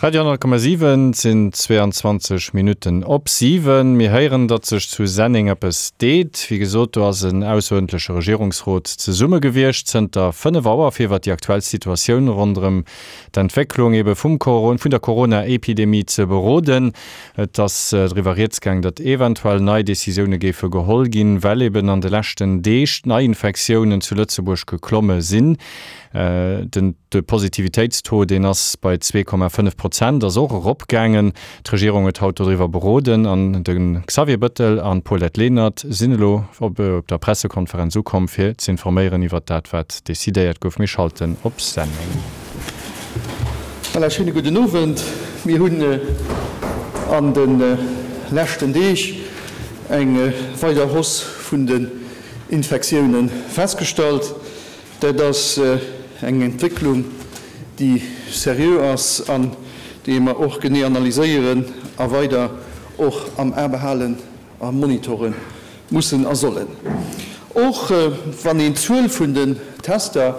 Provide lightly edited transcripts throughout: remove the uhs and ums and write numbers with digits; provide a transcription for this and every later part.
Radio 10,7, Et sinn 22 Minutten op 7. Mir héieren, datt sech zu Senneng eppes deet. Wéi gesot, do ass en ausseruerdentleche Regierungsrot zesumme gewiescht zënter 5 Auer, fir iwwer déi aktuell Situatioun ronderëm d'Entwécklung ebe vum vun der Corona-Epidemie ze beroden. Et ass driwwer rieds gaang, datt eventuell nei Decisioune géife geholl ginn, well eben an de leschten Deeg d'Neiinfektiounen zu Lëtzebuerg geklomme sinn. Den de Positivitéitstaux, deen ass bei 2,5 Prozent, ass och eropgaangen. D'Regierung huet haut doriwwer beroden an de Xavier Bëttel an d'Paulette Lenert sinn elo op der Pressekonferenz ukomm, fir z'informéieren iwwert dat, wat decidéiert gouf. Mir schalten op Senneng. Voilà, schéine gudden Owend. Mir hunn an de leschten Deeg eng weider Hausse vun den Infektioune festgestallt. Dat ass eng Entwécklung, déi seriö ass an déi mer och genee analyséieren a weider och am A behalen a monitore mussen a sollen. Och wann een d'Zuel vun den Tester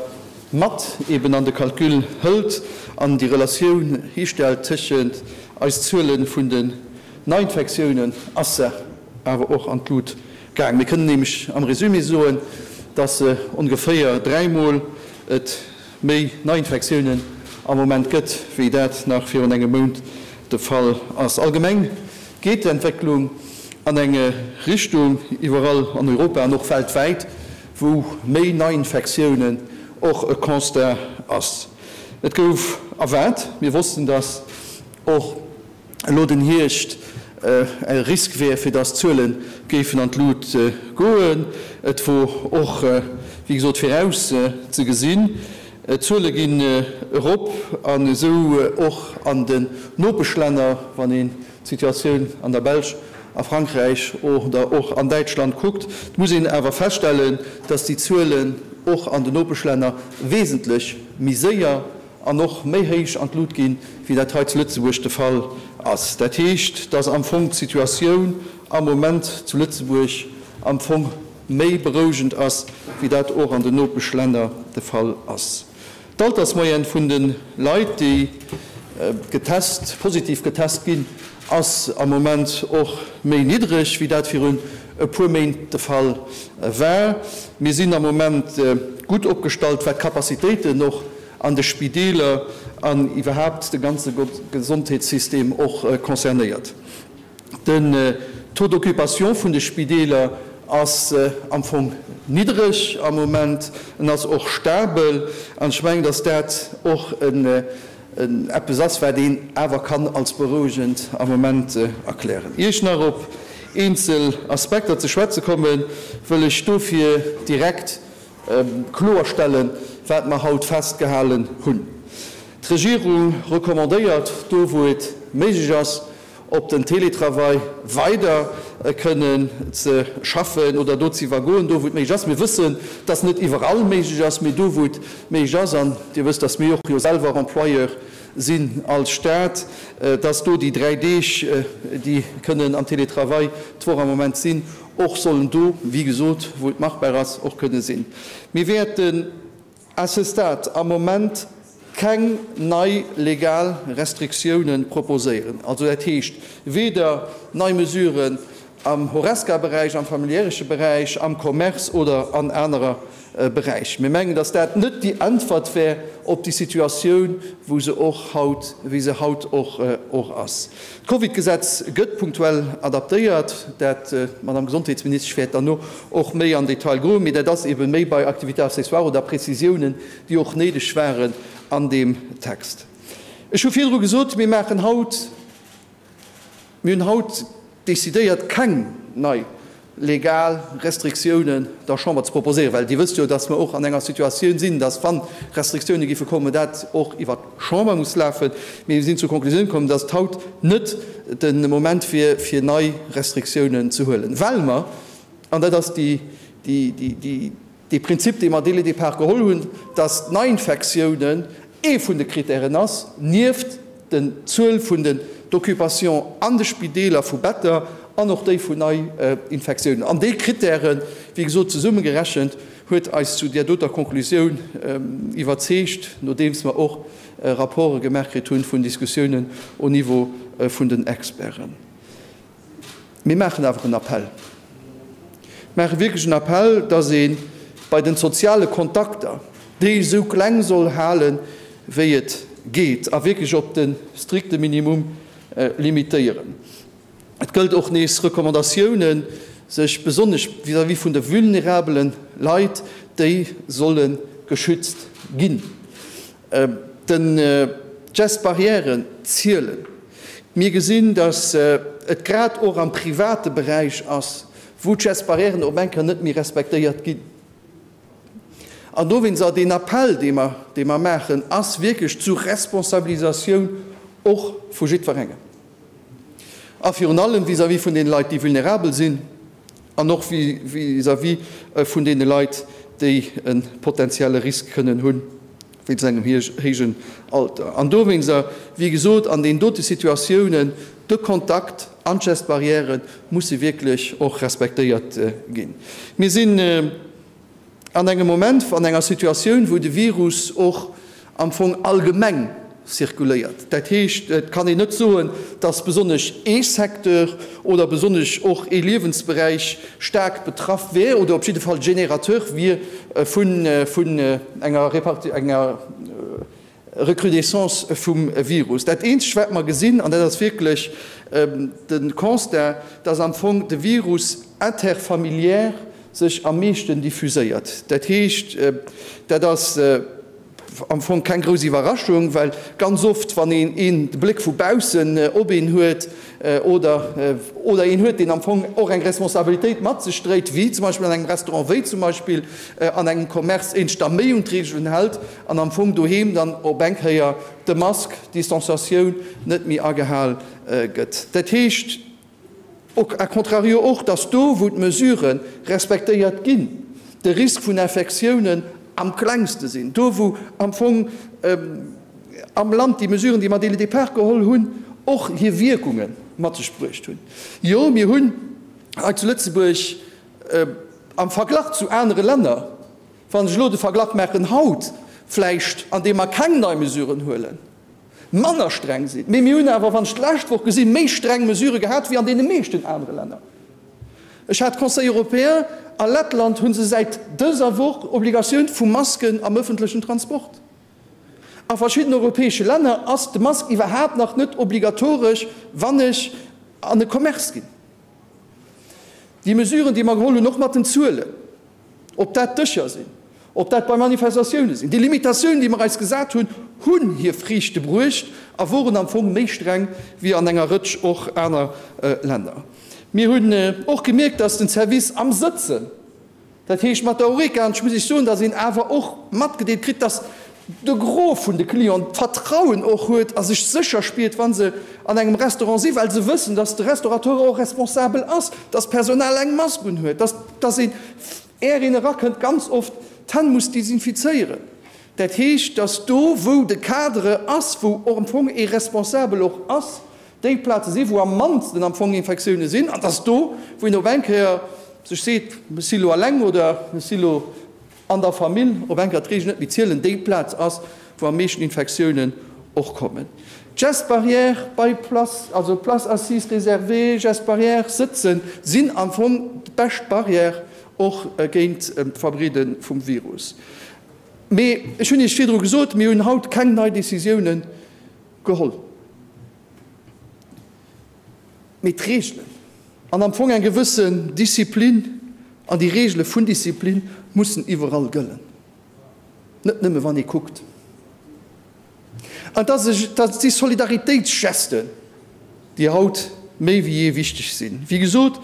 mat eben an de Calcul hëlt an déi Relatioun histellt tëschent eis Zuele vun den Neiinfektiounen, ass se awer och an d'Lut gaang. Mir kënnen nämlech am Résumé soen, dass ongeféier dräimol et méi Neiinfektiounen am Moment gëtt, wéi dat nach virun engem Mount de Fall ass. Allgemeng geet d'Entwécklung an eng Richtung, iwwerall an Europa an och weltwäit, wou méi Neiinfektiounen och e Constat ass. Et gouf erwaart, mir wossten, dass och elo den Hierscht e Risk wär, fir dass d'Zuele géifen an d'Lut goen. Et wor och, wéi gesot, viraus ze gesinn. D'Zuele ginn erop an esou och an den Nopeschlänner, wann een d'Situatioun an der Belsch, a Frankräich oder och an Däitschland kuckt. Et muss een awer feststellen, dass déi Zuelen och an den Nopeschlänner wesentlech méi séier an och méi héich an d'Lut ginn, wéi dat hei zu Lëtzebuerg de Fall ass. Dat heescht, dass am Fong d'Situatioun am Moment zu Lëtzebuerg am Fong méi berouegend ass, wéi dat och an den Nopeschlänner de Fall ass. D'Altersmoyenne vun de Leit, déi getest, positiv getest ginn, ass am Moment och méi niddreg, wéi dat virun e puer Méint de Fall war. Mir sinn am Moment gutt opgestallt, wat d'Capacitéiten och an de Spideeler an iwwerhaapt de ganze Gesondheetssystem och concernéiert. Den Taux d'occupation vun de Spideeler ass am Fong niddreg am Moment. En ass och stabel. An ech mengen, datt dat och eppes ass, wat een awer kann als berouegend am Moment erklären. Ier ech nach op eenzel Aspekter ze schwätze kommen, wëll ech dofir direkt kloerstellen, wat mer haut festgehalen hunn. D'Regierung recommandéiert, do wou et méiglech ass, op den Télétravail weider kënnen ze schaffen oder do ze iwwergoen, do wou et méiglech ass. Mir wëssen, dass net iwwerall méiglech ass, mee do wou et méiglech ass, an Dir wësst, dass mir och jo selwer Employeur sinn als Stat, dass do déi 3 Deeg, déi kënnen am Télétravail d'Woch am Moment sinn, och sollen do, wéi gesot, wou et machbar ass, och kënne sinn. Mir wäerten à ce stade am Moment keng nei legal Restriktiounen proposéieren, also dat heescht weder nei Mesuren am Horesca-Beräich, am familiäresche Beräich, am Commerce oder an anerer Beräich. Mir mengen, dass dat net déi Äntwert wär op déi Situatioun, wou se och haut, wéi se haut och och ass. D'Covidgesetz gëtt punktuell adaptéiert. Dat, d'Madame Gesondheetsministesch wäert derno och méi an Detail goen, mee dat ass eebe méi bei Activités accessoires oder Prezisiounen, déi och néideg waren an deem Text. Ech hu virdru gesot, mir maachen haut, mir hunn haut decidéiert, keng nei legal Restriktiounen der Chamber ze proposéieren, well Dir wësst jo, dass mer och an enger Situatioun sinn, dass, wa Restriktioune géife kommen, dat och iwwert d'Chamber muss lafen. Mee mir sinn zur Konklusioun komm, dass et haut net de Moment wier, fir nei Restriktiounen ze huelen, well mer, an dat ass déi, déi, Dee Prinzip, dee mer dès le départ geholl hunn, dass d'Neiinfektiounen ee vun de Kritären ass, nieft den Zuel vun den d'Occupation an de Spideeler vu Better an och déi vun Neiinfektiounen. An déi Kritären, wéi gesot, zesummegerechent, huet eis zu där doter Konklusioun iwwerzeegt, nodeems mer och. Rapporte gemaach kritt hunn, vun Diskussiounen au Niveau vun den Experten. Mir maachen awer en Appell, maache wierklech en Appell, dass ee bei den soziale Kontakter déi esou kleng soll halen, wéi et geet, a wierklech op de strikte Minimum limitéieren. Et gëllt och nees Recommandatiounen, sech besonnesch vis-à-vis vun de vulnerabele Leit, déi solle geschützt ginn. D'Gestes barrièren zielen. Mir gesinn, datt et grad och am private Beräich ass, wou d'Gestes barrièren op eng Kéier net méi respektéiert ginn. An dowéinst ass deen Appell, dee mer, dee mer maachen, ass wierklech zur Responsabilisatioun och vu jiddwerengem. A virun allem vis-à-vis vun deene Leit, déi vulnerabel sinn, an och vis-à-vis vun deene Leit, déi e potenzielle Risk kënnen hunn wéinst engem héijen Alter. An dowéinst, wéi gesot, an deenen dote Situatiounen, de Kontakt an d'Gestes barrières musse wierklech och respektéiert ginn. Mir sinn an engem Moment, an enger Situatioun, wou de Virus och am Fong allgemeng zirkuléiert. Dat heescht, et kann een net soen, dass besonnesch ee Secteur oder besonnesch och ee Liewensberäich staark betraff wär oder op jidde Fall Générateur wier vun enger Recrudescence vum Virus. Dat eenzegt, wat mer gesinn, an dat ass wierklech de Constat, dass am Fong de Virus interfamiliaire sech am meeschten diffuséiert. Dat heescht, dat ass am Fong keng grouss Iwwerraschung, well ganz oft, wann een een de Bléck vu baussen op een huet oder oder een huet, deen am Fong och eng Responsabilitéit mat sech dréit, wéi zum Beispill an engem Restaurant, wéi zum Beispill an engem Commerce, een sech da méi un d'Reegelen hält an am Fong doheem dann op eng Kéier de Mask, d'Distanciatioun net méi agehal gëtt. Dat heescht a contrario och, dass do, wou d'Mesurë respektéiert ginn, de Risk vun Infektiounen am klengste sinn, do wou am Fong am Land déi Mesuren, déi mer dès le départ geholl hunn, och hir Wierkunge mat sech bruecht hunn. Jo, mir hunn hei zu Lëtzebuerg am Verglach zu anere Länner, wann ech elo de Verglach maachen haut vläicht, andeem mer keng nei Mesuren huelen, manner streng sinn, mee mir hunn awer, wann ech d'lescht Woch gesinn, méi streng Mesurë gehat wéi an deene meeschten anere Länner. Ech hat Conseil européen, a Lettland hu se säit dëser Woch Obligatioun vu Masken am ëffentlechen Transport. A verschiddenen europäesche Länner ass de Mask iwwerhaapt nach net obligatoresch, wann ech an e Commerce ginn. Déi Mesuren, déi mer geholl hunn, och mat den Zuelen, ob dat Dëscher sinn, ob dat bei Manifestatioune sinn, déi Limitatiounen, déi mer eis gesat hunn, hunn hir Friichte bruecht a woren am Fong méi streng wéi an enger Rëtsch och aner Länner. Mir hunn och gemierkt, dass den Service am Sëtzen, Dat heescht mat der Horeca, an ech muss Iech soen, datt een awer och matgedeelt kritt, datt de Gros vun de Clienten d'Vertrauen och huet a sech sécher spiert, wa se an engem Restaurant sinn, well se wëssen, datt de Restaurateur och responsabel ass, datt d'Personal eng Mask unhuet, datt datt een, är een erakënnt, ganz oft d'Hänn muss desinfizéieren. Dat heescht, datt do, wou de Cadre ass, wou och am Fong ee Responsabel och ass, déi Plaze sinn, wou am mannsten am Fong Infektioune sinn, an dass do, wou een op eng Kéier sech seet, ech si lo eleng oder ech si lo an der Famill, op eng Kéier d'Reegelen net méi zielen, déi Plaz ass, wou am meeschten Infektiounen och kommen. D'Gestes barrières bei Place, also Places assises réservées, Gestes barrières, sëtzen, sinn am Fong d'bescht Barrière och géint d'Verbreede vum Virus. Mee ech hunn Iech virdru gesot, mir hunn haut keng nei Décisiounen geholl. Mee d'Reegelen an am Fong eng gewëssen Disziplin an déi Reegele vun Disziplin mussen iwwerall gëllen, net nëmme wann ee kuckt. An dat si Solidaritéitsgesten, déi haut méi wéi jee wichteg sinn. Wéi gesot,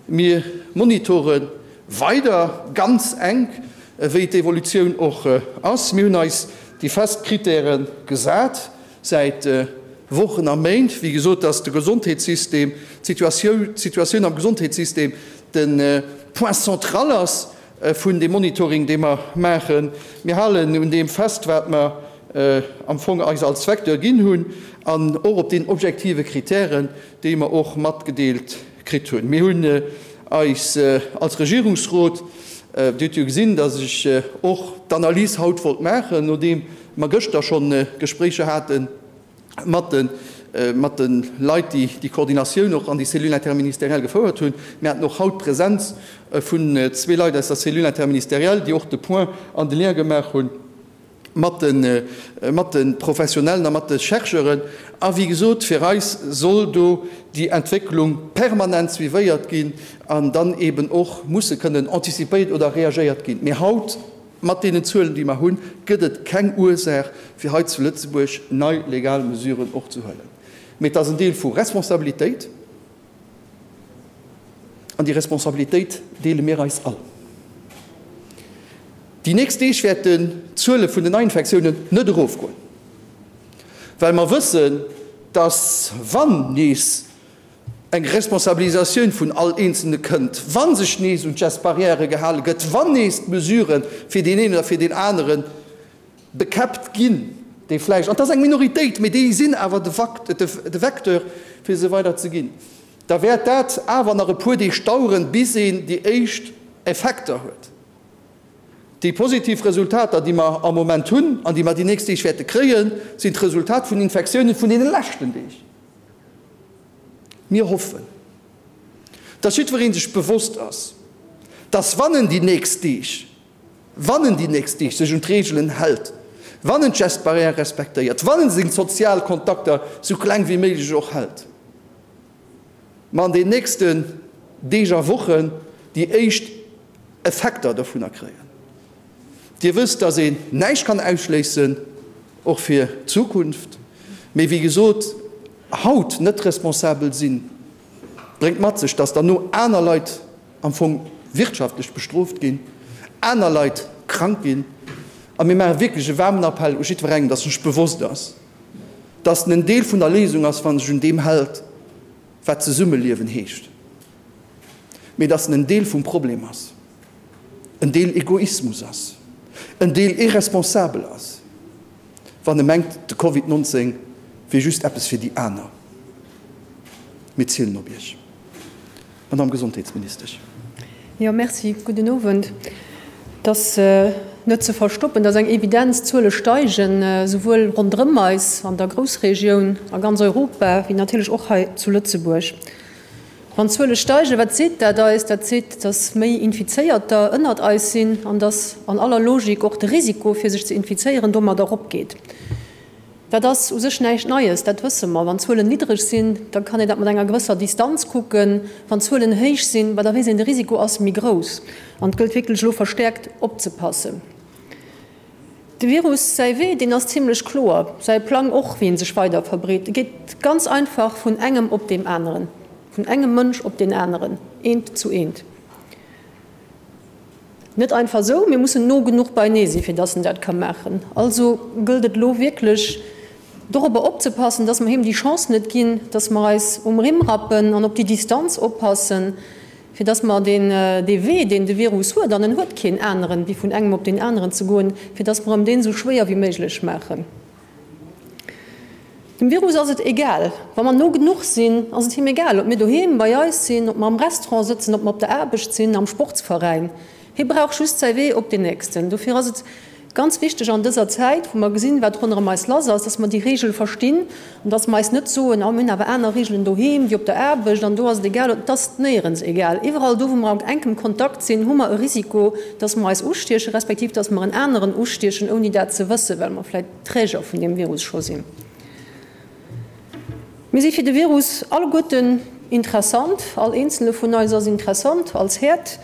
mir monitore weider ganz enk, wéi d'Evolutioun och ass. Mir hunn eis déi fest Kritäre gesat. Säit Wochen a Méint, wéi gesot, dass de Gesondheetssystem, d'Situatioun am Gesondheetssystem de Point central ass vun deem Monitoring, dee mer maachen. Mir halen un deem fest, wat mer am Fong eis als Vecteur ginn hunn an och op deenen objektive Kritären, déi mer och matgedeelt kritt hunn. Mir hunn eis als Regierungsrot, Dir hutt jo gesinn, dass ech och d'Analys haut wollt maachen, nodeem. mer gëschter schonn Gespréicher hate mat de mat de Leit, déi déi Koordinatioun och an déi Cellule interministérielle gefouert hunn. Mir haten och haut d'Presenz vun zwee Leit aus der Cellule interministérielle, déi och de Point an de Lien gemaach hunn mat de mat de Professionellen a mat de Chercheuren. A wéi gesot, fir eis soll do déi Entwécklung permanent suivéiert ginn an dann eeben och musse kënnen anticipéiert oder reagéiert ginn. Mee haut, mat deenen Zuelen, déi mer hunn, gëtt et keng Ursaach, fir hei zu Lëtzebuerg nei legal Mesuren och ze huelen. Mee et ass en Deel vu Responsabilitéit. An déi Responsabilitéit deele mir eis all. Déi nächst Deeg wäerten d'Zuele vun den Neiinfektiounen net erofgoen, well mer wëssen, dass, wann nees eng Responsabilisatioun vun all Eenzelne kënnt, wa sech nees un d'Gestes barrières gehale gëtt, wann nees d'Mesurë fir deen een oder fir deen anere bekäppt ginn, déi vläicht, an et ass eng Minoritéit, mee déi sinn awer de Vecteur, fir se weider ze ginn, da wäert dat awer nach e puer Deeg daueren, bis een déi éischt Effekter huet. Déi positiv Resultater, déi mer am Moment hunn an déi mer déi nächst Deeg wäerte kréien, sinn d'Resultat vun Infektiounen vun deene leschten Deeg. Mir hoffen, dass jiddweree sech bewosst ass, dass wann en déi nächst Deeg, Wann en déi nächst Deeg sech un d'Reegelen hält, wann en d'Gestes barrières respektéiert, wann en seng sozial Kontakter sou kleng wéi méiglech och hält, mer an den nächsten Deeg a Wochen déi éischt Effekter dovunner kréien. Dir wësst, dass een näischt kann ausschléissen, och fir d'Zukunft, mee wéi gesot, haut net responsabel sinn, bréngt mat sech, dass derno aner Leit am Fong wirtschaftlech bestrooft ginn, aner Leit krank ginn. A mir maache wierklech e waarmen Appell u jiddwerengem, dass sech bewosst ass, dass en en Deel vun der Léisung ass, wa sech un deem hält, wat Zesummeliewen heescht, mee dass en en Deel vum Problem ass, en Deel Egoismus ass, en Deel irresponsabel ass, wann e mengt, de Covid 19 wier just eppes fir déi aner. Mir zielen op Iech. Madamm Gesondheetsministesch. Jo, merci. Gudden Owend. Et ass net ze verstoppen, et ass eng Evidenz, D'Zuele steigen, esouwuel ronderëm eis an der Groussregioun, a ganz Europa, wéi natierlech och hei zu Lëtzebuerg. Wann d'Zuele steigen, wat seet dat eis? Dat seet, dass méi Infizéierter ënnert eis sinn an dass an aller Logik och de Risiko, fir sech ze infizéieren, domadder eropgeet. Dat ass u sech näischt Neies, dat wësse mer. Wann d'Zuelen niddreg sinn, da kann een dat mat enger gewësser Distanz kucken. Wann d'Zuelen héich sinn, bah da weess een, de Risiko ass méi grouss an et gëllt wierklech elo verstäerkt opzepassen. De Virus säi Wee, deen ass zimlech kloer, säi Plang och, wéi en sech weider verbreet. E geet ganz einfach vun engem op deem aneren, vun engem Mënsch op deen aneren, eent zu eent. Net einfach esou, mir mussen no genuch beinee sinn, fir dass en dat ka maachen. Also gëllt et elo wierklech dorobber opzepassen, dass mer him déi Chance net ginn, dass mer eis um Rimm rappen an op déi Distanz oppassen, fir dass mer deen, dee Wee, deen de Virus huet, an en huet keen aneren, wéi vun engem op deen aneren ze goen, fir dass mer em deen esou schwéier wéi méiglech maachen. Dem Virus ass et egal. Wa mer no genuch sinn, ass et him egal, ob mir doheem bei eis sinn, ob mer am Restaurant sëtzen, ob mer op der Aarbecht sinn, am Sportsveräin. Hie brauch just säi Wee op deen nächsten. Dofir ass et ganz wichteg an dëser Zäit, wou mer gesinn, wat ronderëm eis lass ass, dass mer déi Reegel verstinn an dass mer eis net soen, oh mir hunn awer aner Reegelen doheem wéi op der Aarbecht an do ass et egal. Et ass néierens egal. Iwwerall do, wou mer an enkem Kontakt sinn, hu mer e Risiko, dass mer eis ustiechen, respektiv dass mer en aneren ustiechen, ouni dat ze wëssen, well mer vläicht Träger vun deem Virus scho sinn. Mir si fir de Virus alleguerten interessant, all eenzele vun eis ass interessant als Häerd.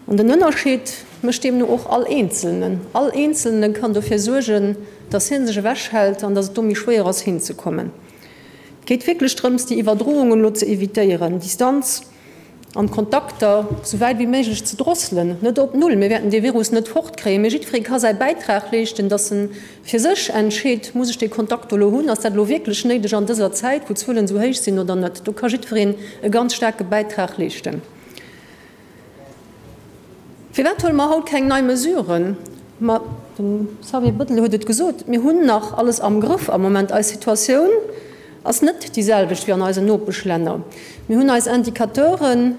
An den Ënnerscheed mécht deemno och all Eenzelnen. All Eenzelne kann dofir suergen, datt hie sech ewechhält an datt et do méi schwéier ass hinzekommen. Et geet wierklech drëms, déi Iwwerdroungen elo ze evitéieren, Distanz an d'Kontakter sou wäit wéi méiglech ze drosselen, net op Null, mir wäerten dee Virus net fortkréien, mee jiddweree ka säi Bäitrag leeschten, datt en fir sech entscheet, muss ech dee Kontakt do elo hunn, ass dat elo wierklech néideg an dëser Zäit, wou d'Zuelen esou héich sinn oder net. Do ka jiddwereen e ganz staarke Bäitrag leeschten. Firwat huele mer haut keng nei Mesuren? Ma de Xavier Bettel huet et gesot, mir hunn nach alles am Grëff am Moment. Eis Situatioun ass net déi selwecht wéi an eisen Nopeschlänner. Mir hunn eis Indicateuren.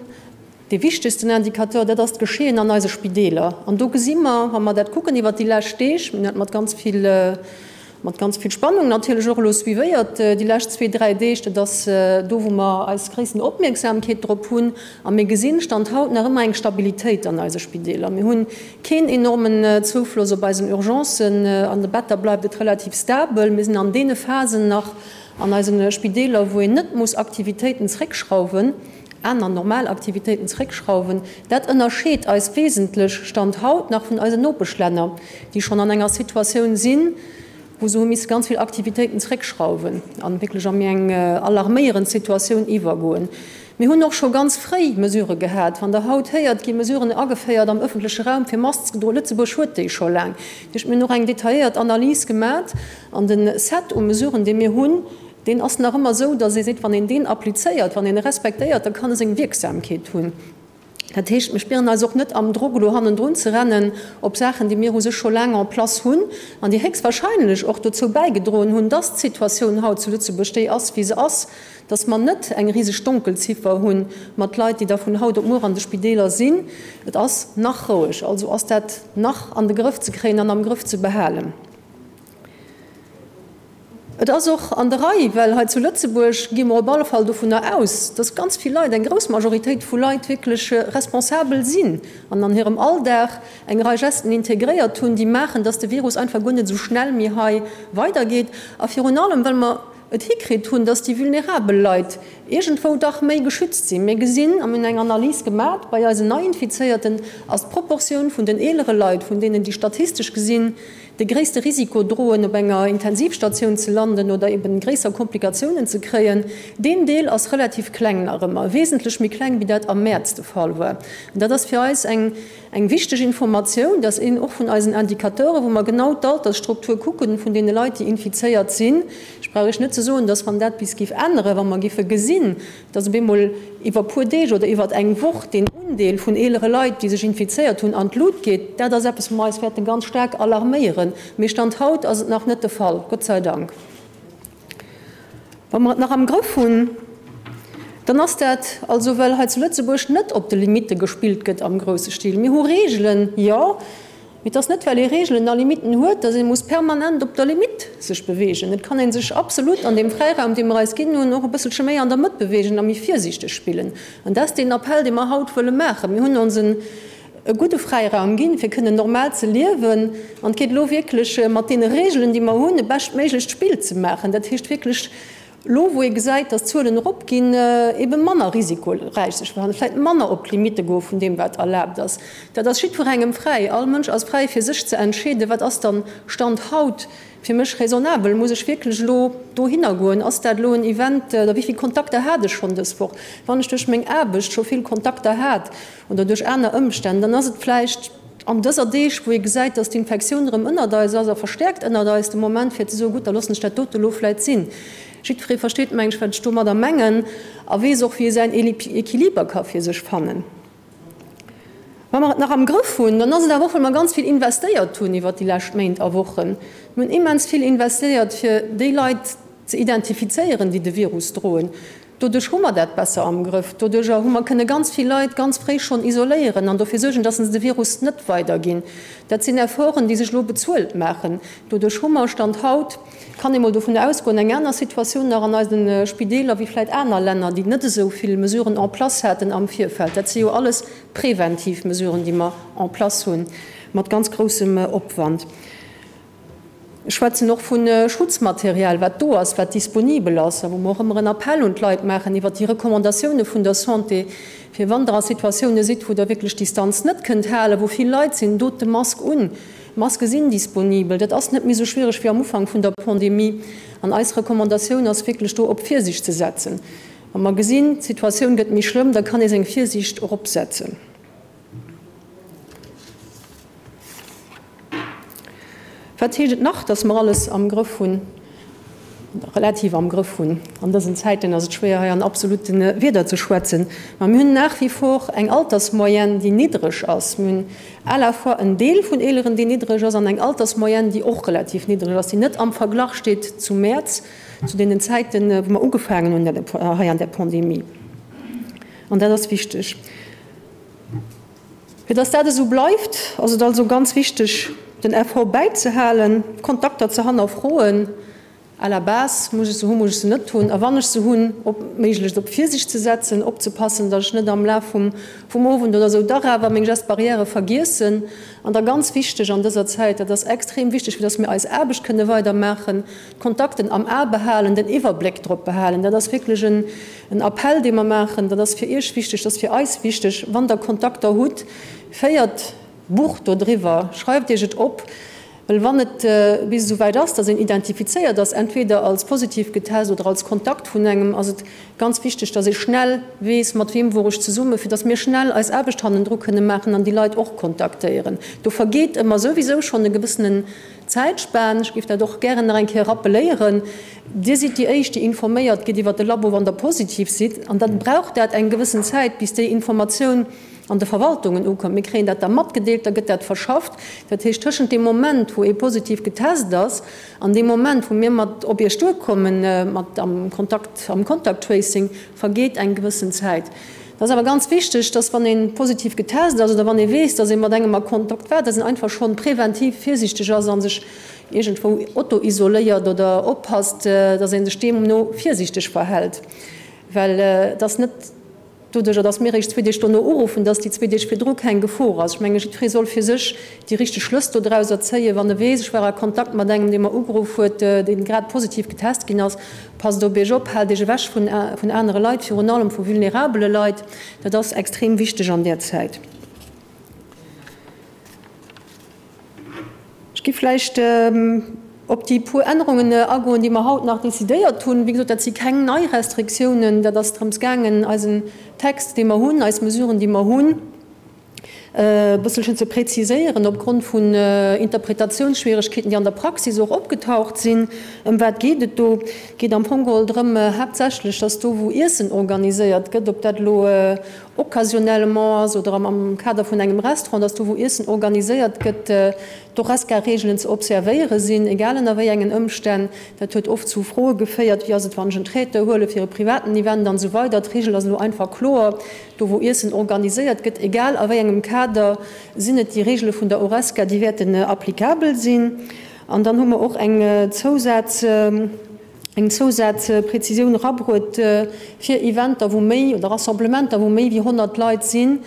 Dee wichtegsten Indicateur, dat ass d'Geschehen an eise Spideeler. An do gesi mer, wa mer dat kucken iwwert déi lescht Deeg, mir hunn dat mat ganz vill, mat ganz vill Spannung natierlech och elo suivéiert déi lescht zwee, dräi Deeg, dat ass do, wou mer eis gréissten Opmierksamkeet drop hunn. A mir gesinn, Stand haut, nach ëmmer eng Stabilitéit an eise Spideeler. Mir hunn keen enormen Zoufloss op eisen Urgencen. An de Better bleift et relativ stabel. Mir sinn an deene Phasen nach an eise Spideeler, wou een net muss Aktivitéiten zréckschrauwen, aner normal Aktivitéiten zréckschrauwen. Dat ënnerscheet eis wesentlech, Stand haut, nach vun eisen Nopeschlänner, déi schonn an enger Situatioun sinn, wou se hu misse ganz vill Aktivitéiten zréckschrauwen a wierklech a méi eng alarméierend Situatioun iwwergoen. Mir hunn och scho ganz fréi Mesurë gehat. Wann Der haut héiert, gi Mesuren ageféiert am ëffentleche Raum fir Masken ze droen, Lëtzebuerg huet déi scho laang. Dat heescht, mir hunn och eng detailléiert Analys gemat an de Set u Mesuren, dee mir hunn, deen ass nach ëmmer esou, datt ee seet, wann een deen applizéiert, wann een e respektéiert, da kann e seng Wierksamkeet hunn. Dat heescht, mir spieren eis och net am Drock, elo hannendrun ze rennen op Saachen, déi mir u sech scho laang en place hunn an déi héchstwahrscheinlech och dozou bäigedroen hunn, dass d'Situatioun haut zu Lëtzebuerg déi ass, wéi se ass, dass mer net eng riseg Donkelziffer hu mat Leit, déi da vun haut op muer an de Spideeler sinn. Et ass nach roueg, also ass dat nach an de Grëff ze kréien an am Grëff ze behalen. Et ass och an der Rei, well hei zu Lëtzebuerg gi mer op alle Fall dovunner aus, dass ganz vill Leit, eng grouss Majoritéit vu Leit wierklech responsabel sinn an an hirem Alldag eng Rei Gesten integréiert hunn, déi maachen, dass de Virus einfach guer net esou schnell méi hei weidergeet. A virun allem, well mer et hikritt hunn, dass déi vulnerabel Leit iergendwou dach méi geschützt sinn. Mir gesinn, a mir hunn eng Analys gemat, bei eisen Neiinfizéierten ass d'Proportioun vun den eelere Leit, vun deenen, déi statistesch gesinn de gréisste Risiko droen, op enger Intensivstatioun ze landen oder eben gréisser Komplikatiounen ze kréien, deen Deel ass relativ kleng nach ëmmer, wesentlech méi kleng wéi dat am Mäerz de Fall war. An dat ass fir eis eng eng wichteg Informatioun, dass een och vun eisen Indicateuren, wou mer genau d'Altersstruktur kucken vun deene Leit, déi infizéiert sinn, ech brauch Iech net ze soen, dass wann dat bis géif änneren, wa mer géife gesinn, dass op eemol iwwer puer Deeg oder iwwer eng Woch deen Undeel vun eelere Leit, déi sech infizéiert hunn, an d'Lut geet, dat ass eppes, wou mer eis wäerte ganz staark alarméieren. Mee Stand haut ass et nach net de Fall, Gott sei Dank. Wa mer et nach am Grëff hunn, dann ass dat also, well hei zu Lëtzebuerg net op de Limitte gespillt gëtt am grousse Stil. Mir hu Reegelen, jo. Mee et ass net, well ee Reegelen a Limitten huet, datt ee muss permanent op der Limitt sech beweegen. Et kann ee sech absolut an deem Fräiraum, dee mer eis ginn hunn, och e bësselche méi an der Mëtt beweegen a méi virsiichteg spillen. An dat ass deen Appell, dee mer haut wëlle maachen. Mir hunn ons en e gudde Fräiraum ginn, fir kënnen normal ze liewen. An et geet elo wierklech, mat deene Reegelen, déi mer hunn, e beschtméiglecht Spill ze maachen. Dat heescht wierklech, Elo wou ee gesäit, datt d'Zuelen eropginn, ebe manner risikoräich sech verhalen, vläicht manner op d'Limitte goe vun deem wat erlaabt ass, dat ass jiddwerengem fräi. All Mënsch ass fräi fir sech ze entscheeden, wat ass dann Stand haut fir mech raisonnabel, muss ech wierklech elo dohinner goen, ass dat elo en Event oder wéi vill Kontakter hat ech schonn dës Woch. Wann ech duerch meng Aarbecht scho vill Kontakter hat oder duerch aner Ëmstänn, dann ass et vläicht an dëser Deeg, wou ee gesäit, dass d'Infektioun erëm ënnert eis ass a verstäerkt ënnert eis, de Moment fir ze soen, gutt, da loossen ech dat dote elo vläit sinn. Jiddweree versteet, meng ech, wat ech domadder mengen a weess och, wéi e säin Equiliber ka fir sech fannen. Wa mer et nach am Grëff hunn, dann ass et awer och, well mer ganz vill investéiert hunn iwwert déi lescht Méint a Wochen. Mir hunn immens vill investéiert, fir déi Leit ze identifizéieren, déi de Virus droen. Doduerch hu mer dat besser am Grëff. Doduercher hu mer kënne ganz vill Leit ganz fréi schonn isoléieren an dofir suergen, dass se de Virus net weiderginn. Dat sinn Efforten, déi sech elo bezuelt maachen. Doduerch hu mer, Stand haut, kann ee mol dovun ausgoen, eng aner Situatioun nach an eise Spideeler wéi vläicht aner Länner, déi net esou vill Mesuren en place haten am Virfeld. Dat si jo alles preventiv Mesuren, déi mer en place hunn, mat ganz groussem Opwand. Ech schwätzen och vu Schutzmaterial, wat do ass, wat disponibel ass a wou mer och ëmmer en Appell un d'Leit maachen iwwert déi Recommandatioune vun der Santé, fir wann Der a Situatioune sidd, wou Der wierklech d'Distanz net kënnt halen, wou vill Leit sinn, dot de Mask un. D'Maske sinn disponibel. Dat ass net méi esou schwiereg wéi am Ufank vun der Pandemie. An eis Recommandatioun ass wierklech do op Virsiicht ze setzen. Wa mer gesinn, d'Situatioun gëtt méi schlëmm, da kann ee seng Virsiicht eropsetzen. Wat heescht et nach, dass mer alles am Grëff hunn, relativ am Grëff hunn? An dësen Zäiten ass et schwéier, hei an absolute Wierder ze schwätzen. Mä mir hunn nach wie vor eng Altersmoyenne, déi niddreg ass. Mir hunn à la fois en Deel vun Eeleren, deen niddreg ass, an eng Altersmoyenne, déi och relativ niddreg ass, déi net am Verglach steet zum Mäerz, zu deenen Zäiten, wou mer ugefaangen hunn hei an där Pandemie. An dat ass wichteg. Fir dass dat esou bleift, ass et also ganz wichteg, den Effort bäizehalen, d'Kontakter ze hannerfroen, à la base, muss ech se hunn, muss ech se net hunn, a wann ech se hunn, op méiglechst op Virsicht ze setzen, opzepassen, dass ech net am Laf vum vum Owend oder esou dach awer meng Gestes barrières vergiessen. An da ganz wichteg an dëser Zäit, dat ass extrem wichteg, fir dass mir eis Aarbecht kënne weidermaachen, d'Kontakten am A behalen, den Iwwerbléck drop behalen. Dat ass wierklech en En Appell, dee mer maachen, dat ass fir Iech wichteg, dat ass fir eis wichteg, Wann Der Kontakter hutt, féiert Buch dodriwwer, schreift Iech et op, well wann et bis esou wäit ass, dass een identifizéiert ass, entweder als positiv getest oder als Kontakt vun engem, ass et ganz wichteg, dass ee schnell weess, mat weem wor ech zesummen, fir dass mir schnell eis Aarbecht hannendru kënne maachen an déi Leit och kontaktéieren. Do vergeet ëmmer souwisou schonn e gewëssenen Zäitspan. Ech géif dat och gären nach eng Kéier rappeléieren. Dir sidd déi Éischt, déi informéiert gitt iwwert de Labo, wann Der positiv sidd. An da brauch dat eng gewëssen Zäit, bis déi Informatioun an de Verwaltungen ukënnt. Mir kréien dat da matgedeelt, da gëtt dat verschafft. Dat heescht, tëschent deem Moment, wou ee positiv getest ass, an deem Moment, wou mir mat op Iech duerkommen, mat am Kontakt, am Contact Tracing, vergeet eng gewëssen Zäit. Et ass awer ganz wichteg, dass wann ee positiv getest ass oder wann ee weess, dass ee mat engem a Kontakt war, dass een einfach schonn präventiv virsiichteg ass a sech iergendwou auto-isoléiert oder oppasst, dass ee sech deemno virsiichteg verhält. Well et ass net doduerjer, dass mir eréischt zwee Deeg dono uruffen, dass déi zwee Deeg virdru keng Gefor ass. Ech menge jiddweree soll fir sech déi richteg Schlëss dodrauser zéien, wann e weess, ech war a Kontakt mat engem, dee mer ugeruff huet, dee grad positiv getest ginn ass. Passt op Iech op, haalt Iech ewech vun anere Leit, virun allem vu vulnerabele Leit. Dat ass extrem wichteg an där Zäit. Ech gi vläicht op déi puer Ännerungen agoen, déi mer haut nach decidéiert hunn. Wéi gesot, dat si keng nei Restriktiounen. Dat ass drëms gaangen, eisen Text, dee mer hunn, eis Mesuren, déi mer hunn, e bësselchen ze präziséieren opgrond vun Interpretatiounsschwieregkeeten, déi an der Praxis och opgetaucht sinn. Ëm wat geet et do? Et geet am Fong geholl drëm haaptsächlech, dass do, wou Iessen organiséiert gëtt, ob dat elo occasionnellement ass oder am Kader vun engem Restaurant, dass do, wou Iessen organiséiert gëtt, d'Horesca-Reegelen ze observéiere sinn, egal ënner wéi engen Ëmstänn. Dat huet oft zu Froe geféiert, Wéi ass et, wann ech en Traiteur huele fir e privaten Event an esou weider. D'Reegel ass elo einfach kloer, Do wou Iessen organiséiert gëtt, egal a wéi engem Kader, sinn et déi Regele vun der Horesca, déi wäerten applicabel sinn. An dann hu mer och eng Zousaz, eng Zousazpräzisioun erabruet fir Eventer, wou méi, oder Rassemblementer, wou méi wéi 100 Leit sinn.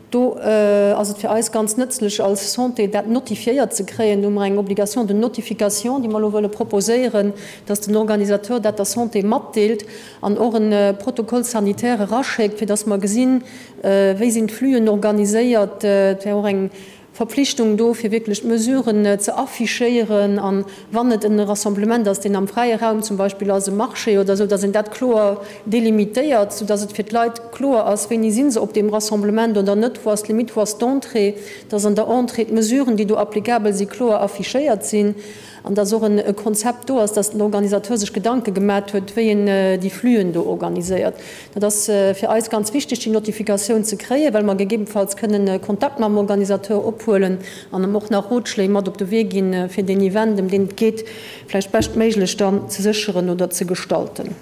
Do ass et fir eis ganz nëtzlech als Santé, dat notifiéiert ze kréien. Do hu mer eng Obligation de notification, déi mer elo wëlle proposéieren, dass den Organisateur dat der Santé matdeelt. An och e Protocole sanitaire eraschéckt, fir dass mer gesinn, wéi sinn d'Flüen organiséiert. Et wär och eng Verpflichtung do, fir wierklech d'Mesuren ze affichéieren. An wann et e Rassemblement ass, deen am fräie Raum zum Beispill ass, e Marché oder esou, dass een dat kloer delimitéiert, soudass et fir d'Leit kloer ass, wéini si se op deem Rassemblement oder net, wou ass d'Limite, wou ass d'Entrée, dass an der Entrée d'Mesuren, déi do applicabel sinn, kloer affichéiert sinn. An dass och e Konzept do ass, dass den Organisateur sech Gedanke gemat huet, wéi en déi Flüen do organiséiert. Dat ass fir eis ganz wichteg, déi Notifikatioun ze kréien, well mer gegebenfalls kënnen Kontakt mam Organisateur ophuelen an em och nach Rotschléi mat op de Wee ginn, fir deen Event, ëm deen et geet, vläicht beschtméiglech dann ze sécheren oder ze gestalten.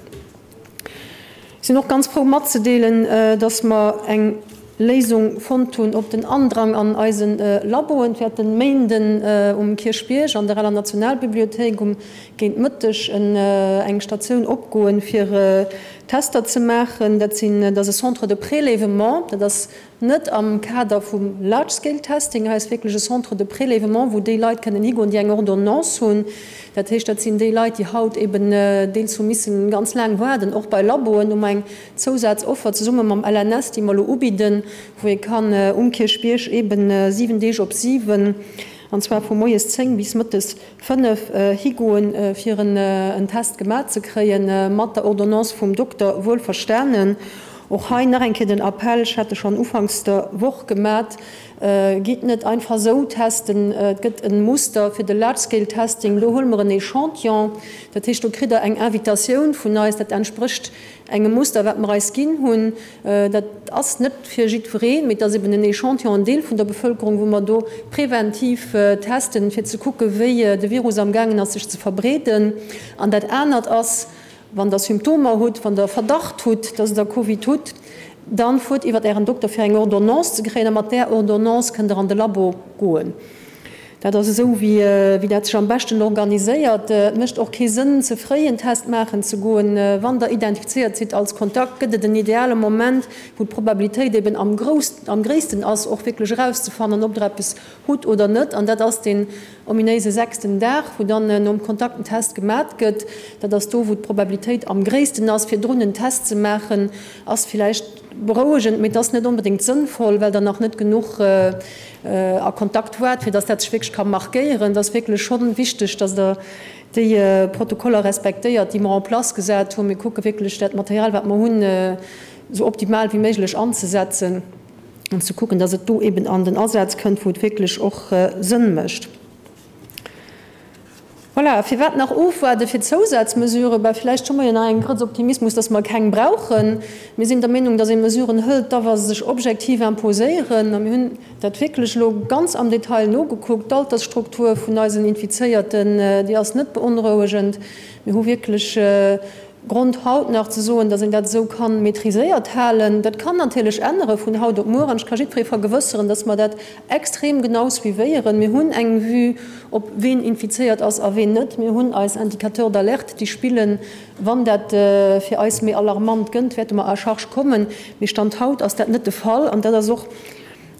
Ech sinn och ganz frou matzedeelen, dass mer eng Léisung fonnt hunn op den Andrang an eise Laboen. Et wäert den Méinden um Kierchbierg an der aler Nationalbibliothéik um géint Mëtteg eng Statioun opgoen, fir Tester ze maachen. Dat sinn, dat ass e Centre de prélèvement, dat ass Net am Kader vum Large Scale Testing, hei ass wierklech e Centre de prélèvement, wou déi Leit kënnen higoen, déi eng Ordonnance hunn. Dat heescht, dat sinn déi Leit, déi haut eben deels hu missen ganz laang waarden, och bei Laboen. Hu mer eng Zousazoffer zesumme mam LNS, déi mer elo ubidden, wou ee kann um Kierchbierg eben 7 Deeg op 7, an zwar vu moies 10 bis mëttes 5 higoen, fir en Test gemaach ze kréien, mat der Ordonnance vum Dokter wuelverstanen. Och hei nach eng Kéier den Appell, ech hat e schonn ufanks der Woch gemat, Gitt net einfach esou testen. Et gëtt e Muster fir de Large-Scale-Testing. Do huele mer en Echantillon. Dat heescht, do kritt Der eng Invitatioun vun eis. Dat entsprécht engem Muster, wat mer eis ginn hunn. Dat ass net fir jiddwereen, mee et ass eben en Echantillon, en Deel vun der Bevëlkerung, wou mer do preventiv testen, fir ze kucken, wéi de Virus amgaangen ass, sech ze verbreeden. An dat anert ass, wann Der Symptomer hutt, wann Der Verdacht hutt, dass Der Covid hutt. Dann fuert iwwert Ären Dokter fir eng Ordonnance ze kréien a mat där Ordonnance kënnt Der an de Labo goen. Dat ass esou wéi dat sech am beschten organiséiert. Et mécht och kee Sënn ze fréi en Test maachen ze goen. Wann Der identifizéiert sidd als Kontakt, gëtt et en ideale Moment, wou d'Probabilitéit eben am am gréissten ass, och wierklech erauszefannen, ob Der eppes hutt oder net. An dat ass deen ominéise sechsten Dag, wou dann nom Kontakt en Test gemat gëtt. Dat ass do, wou d'Probabilitéit am gréissten ass. Virdrun en Test ze maachen, ass villäicht berouegend, mee et ass net onbedéngt sënnvoll, well Der nach net genuch a Kontakt waart, fir dass dat sech wierklech ka markéieren. Et ass wierklech schonn wichteg, dass Der déi Protokoller respektéiert, déi mer en place gesat hunn. Mir kucke wierklech, dat Material, wat mer hunn, esou optimal wéi méiglech anzesetzen an ze kucken, dass et do eben an den Asaz kënnt, wou et wierklech och Sënn mécht. Voilà, firwat nach ofwaarde fir Zousazmesuren? Bah, villäicht hu mer jo nach eng Grëtz Optimismus, dass mer keng brauchen. Mir sinn der Meenung, dass ee Mesuren hëlt, da wa se sech objektiv imposéieren. A mir hunn dat wierklech elo ganz am Detail nogekuckt. D'Altersstruktur vun eisen Infizéierten, déi ass net beonrouegend. Mir hu wierklech Grond haut nach ze soen, datt een dat esou ka maîtriséiert halen. Dat kann natierlech ännere vun haut op muer an ech ka jiddweree vergewësseren, datt mer dat extrem genau suivéieren. Mir hunn eng Vue op ween infizéiert ass a ween net. Mir hunn eis Indicateurs d'alerte, déi spillen. Wann dat fir eis méi alarmant gënnt, wäerte mer à charge kommen. Mee Stand haut ass dat net de Fall an dat ass och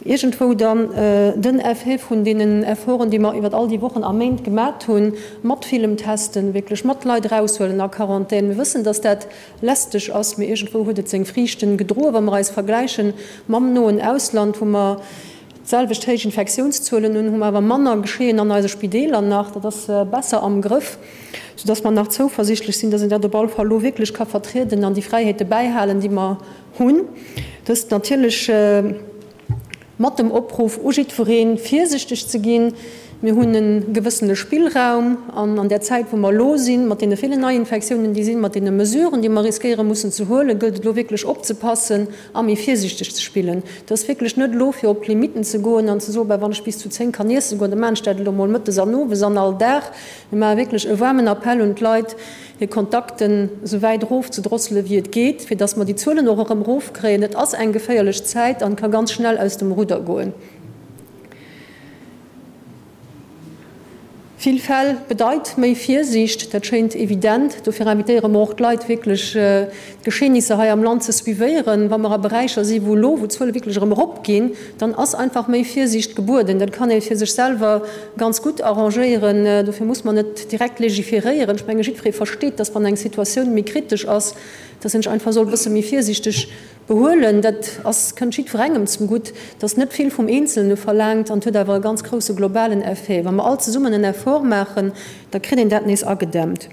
iergendwou dann den Effet vun deenen Efforten, déi mer iwwer all déi Wochen a Méint gemat hunn, mat villem Testen, wierklech mat Leit eraushuelen a Quarantän. Mir wëssen, dass dat lästeg ass, mee iergendwou huet et seng Friichten gedroen, wa mer eis vergläiche mam noen Ausland, wou mer d'selwecht héich Infektiounszuelen hunn, hu mer awer manner Geschehen an eise Spideeler nach. Dat ass besser am Grëff, soudass mer nach zouversichtlech sinn, dass een dat op alle Fall elo wierklech ka vertrieden an déi Fräiheete bäihalen, déi mer hunn. Dëst natierlech mat dem Opruff u jiddwereen, virsichteg ze ginn. Mir hunn e gewëssene Spillraum an an där Zäit, wou mer elo sinn, mat deene villen Neiinfektiounen, déi sinn, mat deene Mesuren, déi mer riskéiere mussen ze huelen, gëllt et elo wierklech opzepassen a méi virsichteg ze spillen. Et ass wierklech net elo, fir op d'Limitten ze goen an ze soen, Bah, wann ech bis zu 10 kann iesse goen, da maachen ech dat elo mol mëttes an owes an all Dag. Mir maache wierklech e waarmen Appell un d'Leit, hir Kontakten esou wäit erof ze drosselen, wéi et geet, fir dass mer déi Zuelen och erëm erofkréien. Et ass eng geféierlech Zäit an ka ganz schnell aus dem Rudder goen. Vill Fäll bedeit méi Virsiicht, dat schéint evident. Dofir invitéiere mer och d'Leit, wierklech d'Geschehnisser hei am Land ze suivéieren. Wa mer a Beräicher si wou elo, wou d'Zuele wierklech erëm eropginn, dann ass einfach méi Virsiicht gebueden. Dat kann ee fir sech selwer ganz gutt arrangéieren. Dofir muss mer net direkt legiferéieren. Ech menge jiddweree versteet, dass wann eng Situatioun méi kritesch ass, dass een sech einfach soll e bësse méi virsiichteg behuelen. Dat ass, kënnt jiddwerengem zum Gutt. Et ass net vill vum Eenzelne verlaangt an et huet awer e ganz grousse globalen Effet. Wa mer all zesummen en Effort maachen, da kritt een dat nees agedämmt.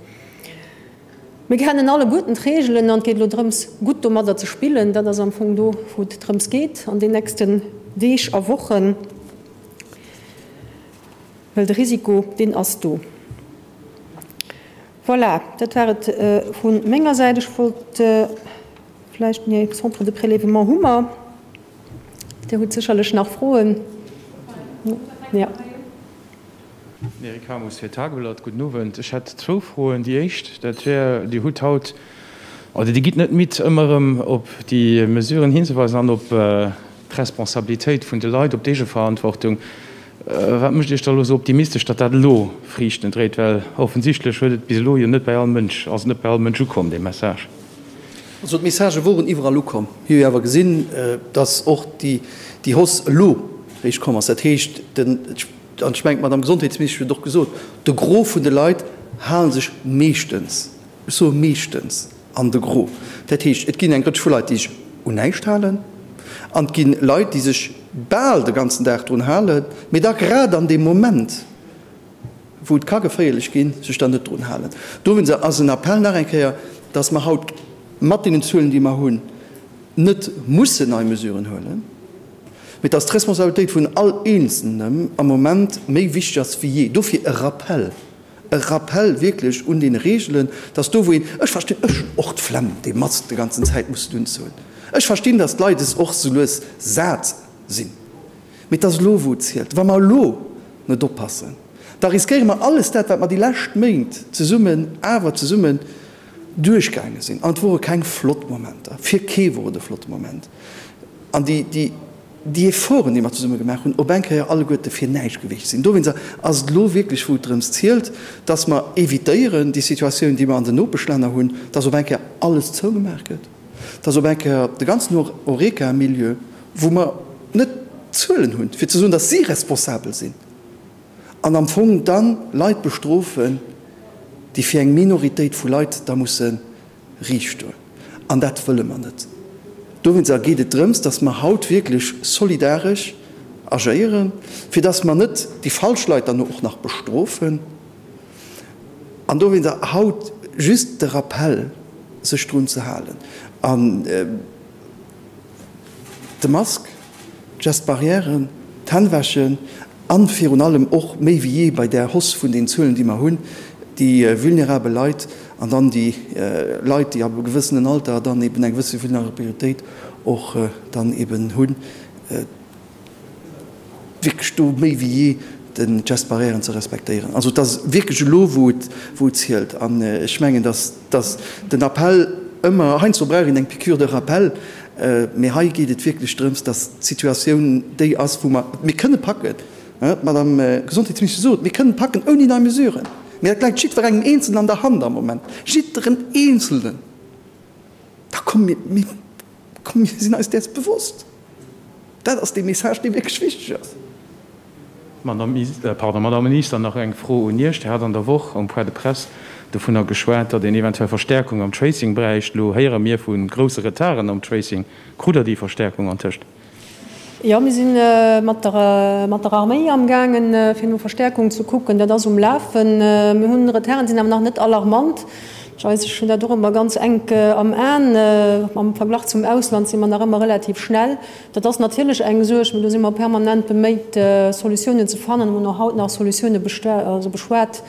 Mir kennen alleguerten d'Reegelen an et geet elo drëms, gutt domadder ze spillen. Dat ass am Fong do, wou et drëms geet an den nächsten Deeg a Wochen. Well de Risiko, deen ass do. Voilà, dat war et vu menger Säit. Ech wollt vläicht, nee, Centre de prélèvement hu mer. Dir hutt sécherlech nach Froen. Jo. Eric Hamus fir d'Tageblatt, Gudden Owend. Ech hätt zwou Froen. Déi éischt, dat wär, Dir hutt haut, oder Dir gitt net midd, ëmmer erëm op déi Mesuren hinzeweisen an op d'Responsabilitéit vun de Leit, op d'Eegeverantwortung. Wat mécht Iech da elo esou optimistesch, datt dat elo Friichten dréit? Well offensichtlech huet et bis elo jo net bei all Mënsch, ass et net bei all Mënsch ukomm, dee Message. Also d'Messagë woren iwwerall ukomm. Mir hu jo awer gesinn, datt och déi Hausse elo réischt komm ass. Dat heescht, den, an ech mengen d'Madame Gesondheetsministesch huet et och gesot, de Gros vun de Leit hale sech meeschtens, ech soe meeschtens, an de Gros. Dat heescht, et ginn eng Rëtsch vu Leit, déi sech un näischt halen, an et gi Leit, déi sech bal de ganzen Dag drun halen, mee da grad an deem Moment, wou et ka geféierlech ginn, sech dann net drun halen. Dowéinst ass en Appell nach eng Kéier, dass mer haut mat deenen Zuelen, déi mer hunn, net mussen nei Mesuren huelen, mee dass d'Responsabilitéit vun all Eenzelnem am Moment méi wichteg ass wéi jee. Dofir e Rappell. E Rappel wierklech un deene Reegelen, dass do wou een, ech verstinn, ech hunn och d'Flemm déi Mask de ganzen Zäit mussen unzehuelen, ech verstinn, dass d'Leit es och sou lues sat sinn, mee et ass elo wou et zielt. Wa mer elo net oppassen, da riskéiere mer alles dat wat mer déi lescht Méint zesummen, awer zesummen. duerchgaange sinn, an et wore keng flott Momenter, fir kee wor et e flotte Moment, an déi, déi, déi Efforten, déi mer zesumme gemaach hunn, op eng Kéier alleguerte fir näischt gewiescht sinn. Dowéinster ass et elo wierklech, wou et drëms zielt, dass mer évitéieren déi Situatioun, déi mer an den Nopeschlänner hunn, dass op eng Kéier alles zougemaach gëtt, dass op eng Kéier de ganzen Horeca-Milieu, wou mer net d'Zuelen hunn, fir ze soen, dass si responsabel sinn, an am Fong da Leit bestrofen, déi fir eng Minoritéit vu Leit da musse riicht stoen. An dat wëlle mer net. Dowéinster geet et drëms, dass mer haut wierklech solidaresch agéieren, fir dass mer net déi falsch Leit dann och nach bestrofen. An dowéinster haut just de Rappell, sech drun ze halen. An de Mask, d'Gestes barrières, d'Hänn wäschen a virun allem och méi wéi jee bei där Hausse vun den Zuelen, déi mer hunn, déi vulnerabel Leit an dann déi Leit, déi ab e gewëssenen Alter dann eben eng gewësse Vulnerabilitéit och dann eben hunn, wierklech do méi wéi jee de Geste barrièren ze respektéieren. Also et ass wierklech elo, wou et, wou et zielt. An ech mengen, dass, dass den Appell ëmmer, heiansdo brauch een eng Piqûre de rappel, mee hei geet et wierklech drëms, dass d'Situatioun déi ass, wou mer, mir kënne packen, d'Madame Gesondheetsministesch sot, mir kënnen packen ouni nei Mesuren, mee dat läit jiddwerengem Eenzelnen an der Hand am Moment, jidderen Eenzelnen. Da komm, mir, mir, komm, mir sinn eis däers bewosst. Dat ass dee Message, dee wierklech wichteg ass. Madame Minister, nach eng Fro un Iech. Dir hat an der Woch um Point de presse dovunner geschwat, datt een eventuell Verstärkung am Tracing bräicht. Elo héiere mir vu grousse Retarden am Tracing. Krut Der déi Verstärkung antëscht? Jo, mir si mat der Arméi amgaangen, fir no Verstärkung ze kucken. Dat ass um Lafen. Mir hunn Retarden, sinn awer nach net alarmant. Ech weess, ech hunn dat och ëmmer ganz enk am Aen. Am Verglach zum Ausland si mer nach ëmmer relativ schnell. Dat ass natierlech eng Suerg, mee do si mer permanent beméit, Solutiounen ze fannen. Mir hunn och haut nach Solutioune beschwat.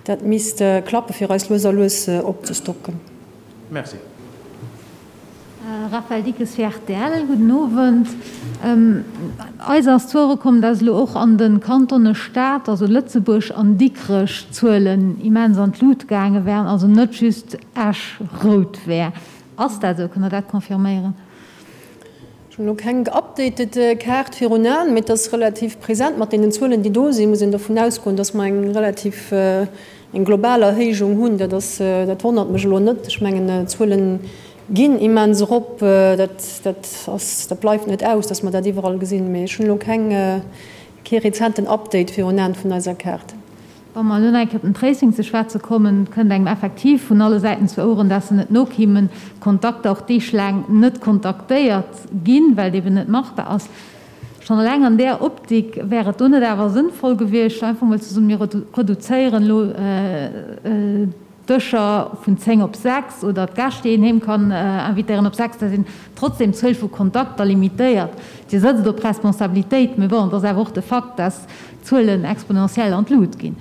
Dat misst klappe fir eis lues a lues opzestocken. Merci. Raphaëlle Dickes fir rtl, Gudden Owend. Eis ass zu Ouere komm, dass elo och an de Kantone Stad, also Lëtzebuerg an Dikrech d'Zuelen immens an d'Lut gaange wären, also net just Esch rout wär. Ass dat esou? Kënnt Der dat confirméieren? Ech hunn elo keng geupdatet Kaart virun Aen, mee et ass relativ present. Mat deenen Zuelen, déi do sinn, muss een dovun ausgoen, dass mer eng relativ, eng global Erhéijung hunn. Dat ass, dat wonnert mech elo net. Ech mengen, d'Zuele ginn immens erop. Dat, dat ass, dat bleift net aus, dass mer dat iwwerall gesinn. Mee ech hunn elo keng, kee rezenten Update virun Aen vun eiser Kaart. Wa mer elo nach eng Kéier op den Tracing ze schwätze kommen, et kënnt engem effektiv vun alle Säiten zu Oueren, dass se net nokimmen, Kontakter och deeglaang net kontaktéiert ginn, well et eben net machbar ass. Schonn eleng an där Optik, wär et do net awer sënnvoll gewiescht, einfach emol ze soen, mir reduzéieren elo d'Dëscher vun 10 op 6 oder d'Gäscht, déi een heem kann invitéieren, op 6, dass een trotzdem d'Zuel vu Kontakter limitéiert. Dir sëtzt op Responsabilitéit, mee bon, et ass awer och de Fakt, dass d'Zuelen exponentiell an d'Lut ginn.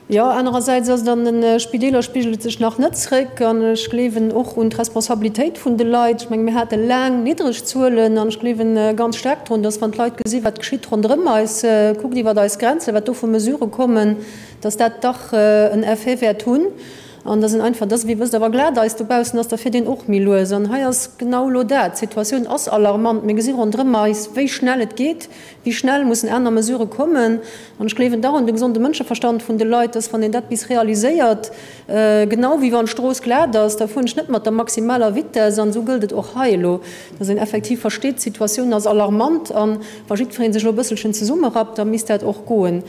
Jo, anerersäits ass et an de Spideeler spigelt et sech nach net zréck an ech gleewen och un d'Responsabilitéit vun de Leit. Ech menge mir hate laang niddreg Zuelen an ech gleewen ganz staark drun, dass wann d'Leit gesi wat geschitt ronderëm eis, kuckt iwwert eis Grenzen, wat do vu Mesurë kommen, dass dat dach en Effet wäert hunn an dass een einfach, dass, wéi wësst Der, wa glat Eis dobaussen ass, da fiert een och méi lues. An hei ass genau elo dat, d'Situatioun ass alarmant, mir gesi ronderëm eis, wéi schnell et geet, wéi schnell mussen aner Mesurë kommen. An ech gleewen dach un de gesonde Mënscheverstand vun de Leit, dass, wann een dat bis realiséiert, genau wéi wann d'Strooss glat ass, da fueren ech net mat der maximaler Vitesse. An esou gëllt et och hei elo, dass een effektiv versteet, d'Situatioun ass alarmant an wa jiddweree sech elo e bësselchen zesummerappt, da misst dat och goen.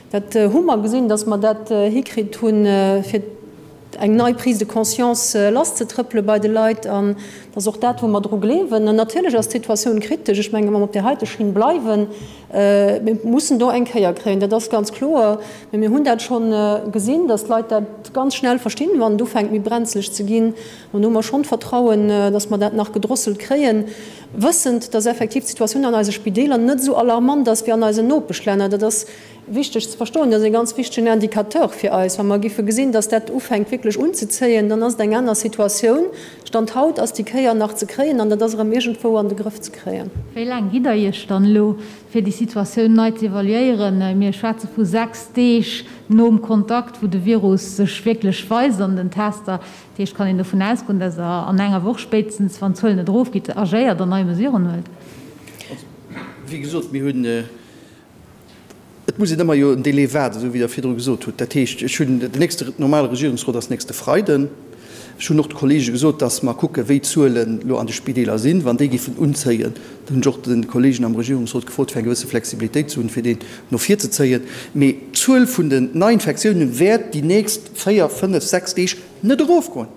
Dat hu mer gesinn, dass mer dat hikritt hunn, fir eng nei Prise de conscience lasszetrëppele bei de Leit. An dat ass och dat, wou mer dru gleewen. An natierlech ass d'Situatioun kritesch. Ech mengen, wa mer op där heite Schinn bleiwen, mir mussen do eng Kéier kréien, dat ass ganz kloer. Mä mir hunn dat scho gesinn, dass d'Leit dat ganz schnell verstinn, wann et ufänkt méi brenzleg ze ginn. An do hu mer schonn d'Vertrauen, dass mer dat nach gedrosselt kréien, wëssend, dass effektiv d'Situatioun an eise Spideeler net esou alarmant ass wéi an eisen Nopeschlänner. Dat ass. wichteg ze verstoen, dat ass e ganz wichtegen Indicateur fir eis. Wa mer giffe gesinn, dass dat ufänkt wierklech unzezéien, dann ass et eng aner Situatioun. Stand haut ass déi Kéier nach ze kréien an dat ass erëm iergendwou an de Grëff ze kréien. Wéi laang gitt Der Iech dann elo, fir déi Situatioun nei ze evaluéieren? Mir schwätze vu 6 Deeg nom Kontakt, wou de Virus sech wierklech weist an den Tester. Dat heescht, kann een dovun ausgoen, dass Der an enger Woch spéitstens, wann d'Zuelen net erofgeet, agéiert an nei Mesuren huelt? Also, wéi gesot, mir hunn, et muss een ëmmer jo en Délai waarden, esou wéi Der virdru gesot hutt. Dat heescht, ech hunn, den nächste normale Regierungsrot ass nächste Freiden. Ech hunn och de Kollege gesot, dass mer kucken, wéi d'Zuelen elo an de Spideeler sinn. Wann déi géifen unzéien, dann hunn ech och de Kollegen am Regierungsrot gefrot, fir eng gewësse Flexibilitéit ze hunn, fir deen no vir ze zéien. Mee d'Zuel vun den Neiinfektiounen wäert déi nächst véier, fënnef, sechs Deeg net erofgoen.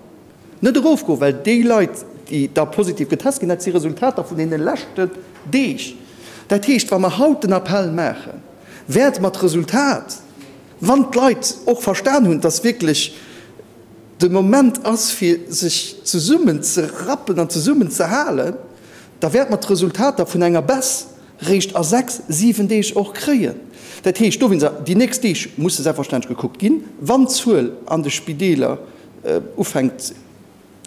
Net erofgoen, well déi Leit, déi da positiv getest ginn, dat si Resultater vun deene leschten Deeg. Dat heescht, wa mer haut den Appell maachen, wäerte mer d'Resultat, wann d'Leit och verstan hunn, dass wierklech de Moment ass, fir sech zesummen ze rappen an zesummen ze halen, da wäerte mer d'Resultater vun enger Baisse réischt a sechs, siwen Deeg och kréien. Dat heescht dowéinst, déi nächst Deeg musse selbstverständlech gekuckt ginn, wann d'Zuel an de Spideeler ufänkt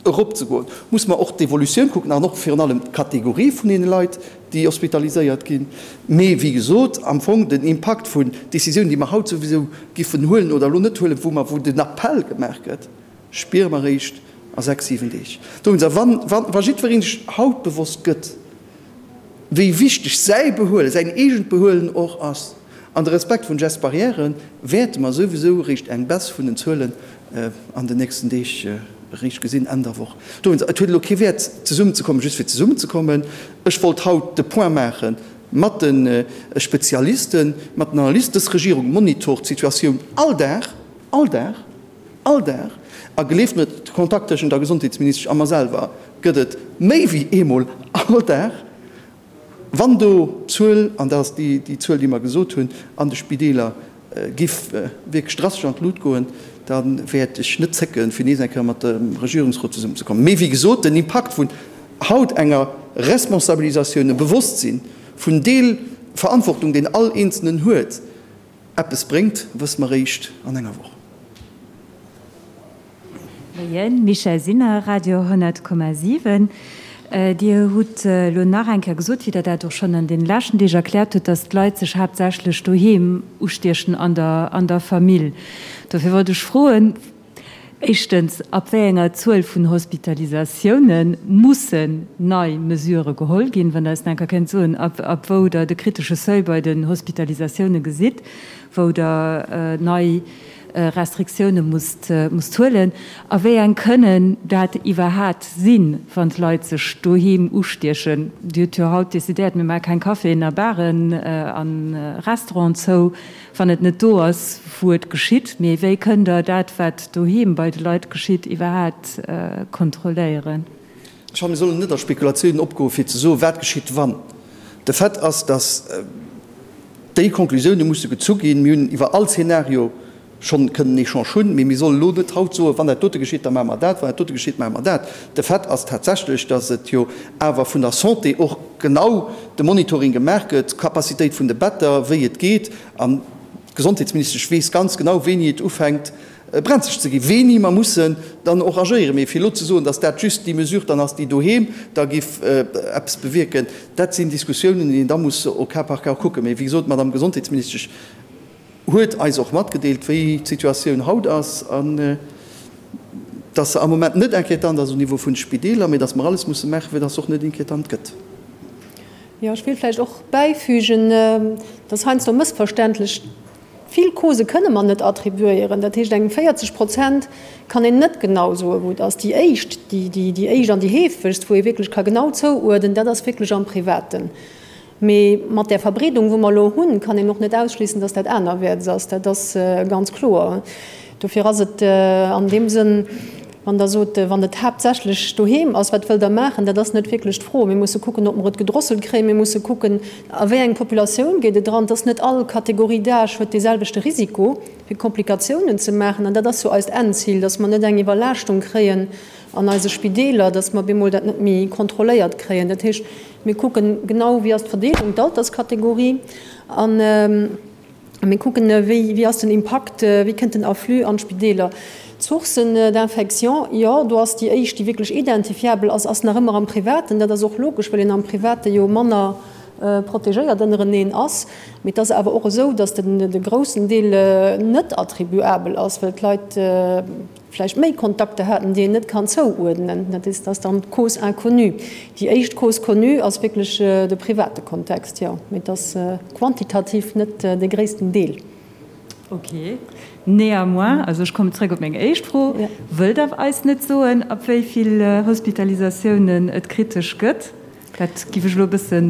eropzegoen, muss mer och d'Evolutioun kucken an och virun allem d'Kategorie vun deene Leit, déi hospitaliséiert ginn. Mee wéi gesot, am Fong den Impakt vun Décisiounen, déi mer haut souwisou giffen huelen oder elo net huelen, wou mer, wou den Appell gemaach gëtt, spiere mer eréischt a sechs, siwen Deeg. Dowéinst, a wann, wa jiddweree sech haut bewosst gëtt, wéi wichteg säi Behuelen, säin eegent Behuelen och ass, an de Respekt vun Gestes barrières, wäerte mer souwisou eréischt eng Baisse vun den Zuelen an den nächsten Deeg eréischt gesinn, Enn der Woch. Dowéinst, et huet elo kee Wäert zesummenzekommen, just fir zesummenzekommen. Ech wollt haut de Point maache mat de Spezialisten, mat den Analysten. Dës Regierung monitort d'Situatioun all Dag, all Dag, all Dag. A gleeft mir, de Kontakt tëschent der Gesondheetsministesch a mer selwer gëtt et méi wéi eemol all Dag. Wann do d'Zuel, an dat ass déi Zuel, déi mer gesot hunn, an de Spideeler giff wierklech drastesch an d'Lut goen, da wäert ech net zécken, fir nees eng Kéier mat dem Regierungsrot zesummenzekommen. Mee wéi gesot, den Impakt vun haut enger Responsabilisatioun, e Bewosstsinn vun Deel Verantwortung, deen all Eenzelnen huet, eppes bréngt, wësse mer eréischt an enger Woch. Moien, Michèle Sinner, Radio 10,7. Dir hutt elo nach eng Kéier gesot, wéi Der dat och schonn an deene leschten Deeg erkläert hutt, datt d'Leit sech haaptsächlech doheem ustiechen an der an der Famill. Dofir wollt ech froen, éischtens, ab wéi enger Zuel vun Hospitalisatioune mussen nei Mesurë geholl ginn? Wann Der eis nach eng Kéier kéint soen, ab ab wou Der de kritesche Seuil bei den Hospitalisatioune gesitt, wou Der nei Restriktioune musst huelen? A wéi eng kënnen dat iwwerhat sinn, wann d'Leit sech doheem ustiechen? Dir hutt jo haut decidéiert, mir maache keng Caféen a Baren a Restauranten zou, wann et net do ass, wou et geschitt. Mee wéi kënnt Der dat, wat doheem bei de Leit geschitt, iwwerhat kontrolléieren? Ech fannen, mir sollen net a Spekulatiounen opgoen, fir ze soen, wat geschitt, wann. De Fait ass, dass déi Konklusioune musse gezu ginn. Mir hunn iwwer all Zeenario schonn kënnen en Echange hunn, mee mir sollen elo net haut soen, wann dat dote geschitt, da maache mer dat, wann dat dote geschitt, maache mer dat. De Fait ass tatsächlech, dass et jo awer vun der Santé och genau de Monitoring gemaach gëtt, d'Capacitéit vun de Better, wéi et geet. An d'Gesondheetsministesch weess ganz genau, wéini et ufänkt, brenzeg ze ginn, wéini mer mussen dann och agéieren. Mee fir elo ze soen, datt dat just déi Mesure dann ass, déi doheem da géif eppes bewierken, dat sinn Diskussiounen, déi een da muss au cas par cas kucken. Mee wéi gesot, d'Madame Gesondheetsministesch huet eis och matgedeelt, wéi d'Situatioun haut ass an datt se am Moment net inquiétant ass au Niveau vun de Spideeler, mee datt mer alles musse maachen, fir datt se och net inquiétant gëtt. Jo, ech wéilt vläicht och bäifügen, dass heiansdo mëssverständlech Vill Causen kënne mer net attribuéieren. Dat heescht, eng 40 Prozent kann een net genau soen, wou et ass. Déi éischt, déi éischt an déi heefegst, wou ee wierklech ka genau zouuerdnen, dat ass wierklech am Privaten. Mee mat där Verbreedung, wou mer elo hunn, kann een och net ausschliessen, dass dat anerwäerts ass. Dat ass ganz kloer. Dofir ass et an deem Sënn, Wann Der sot, wann et haaptsächlech doheem ass, wat wëllt Der maachen? Dat ass net wierklech d'Fro. Mir musse kucken, ob mer et gedrosselt kréien. Mir musse kucken, a wéi eng Populatioun geet et eran. Et ass net all Catégorie d'âge huet deeselwechte Risiko, fir Komplikatiounen ze maachen. An dat ass jo eist Endzil, dass mer net eng Iwwerlaaschtung kréien an eise Spideeler, dass mer bemol dat net méi kontrolléiert kréien. Dat heescht, mir kucken genau, wéi ass d'Verdeelung, d'Alterskategorie. An. A mir kucken, wéi, wéi ass den Impakt, wéi kënnt den Afflux an d'Spideeler. D'Sourcen d'infection, jo, do ass déi éischt, déi wierklech identifiabel ass, ass nach ëmmer am Privaten. Dat ass och logesch, well een am Private jo manner protegéiert ënnereneen ass. Mee et ass awer och esou, datt den, de groussen Deel net attribuabel ass, well d'Leit vläicht méi Kontakter haten, déi een net kann zouuerdnen. Dat is, ass dann d'Cause inconnue. Déi éischt Cause connue ass wierklech de private Kontext, jo, mee et ass quantitativ net de gréissten Deel. Ok. Néanmoins, also ech kommen zrëck op meng éischt Fro, Wëllt Der eis net soen, ab wéi vill Hospitalisatiounen et kritesch gëtt? Dat giff ech elo e bëssen.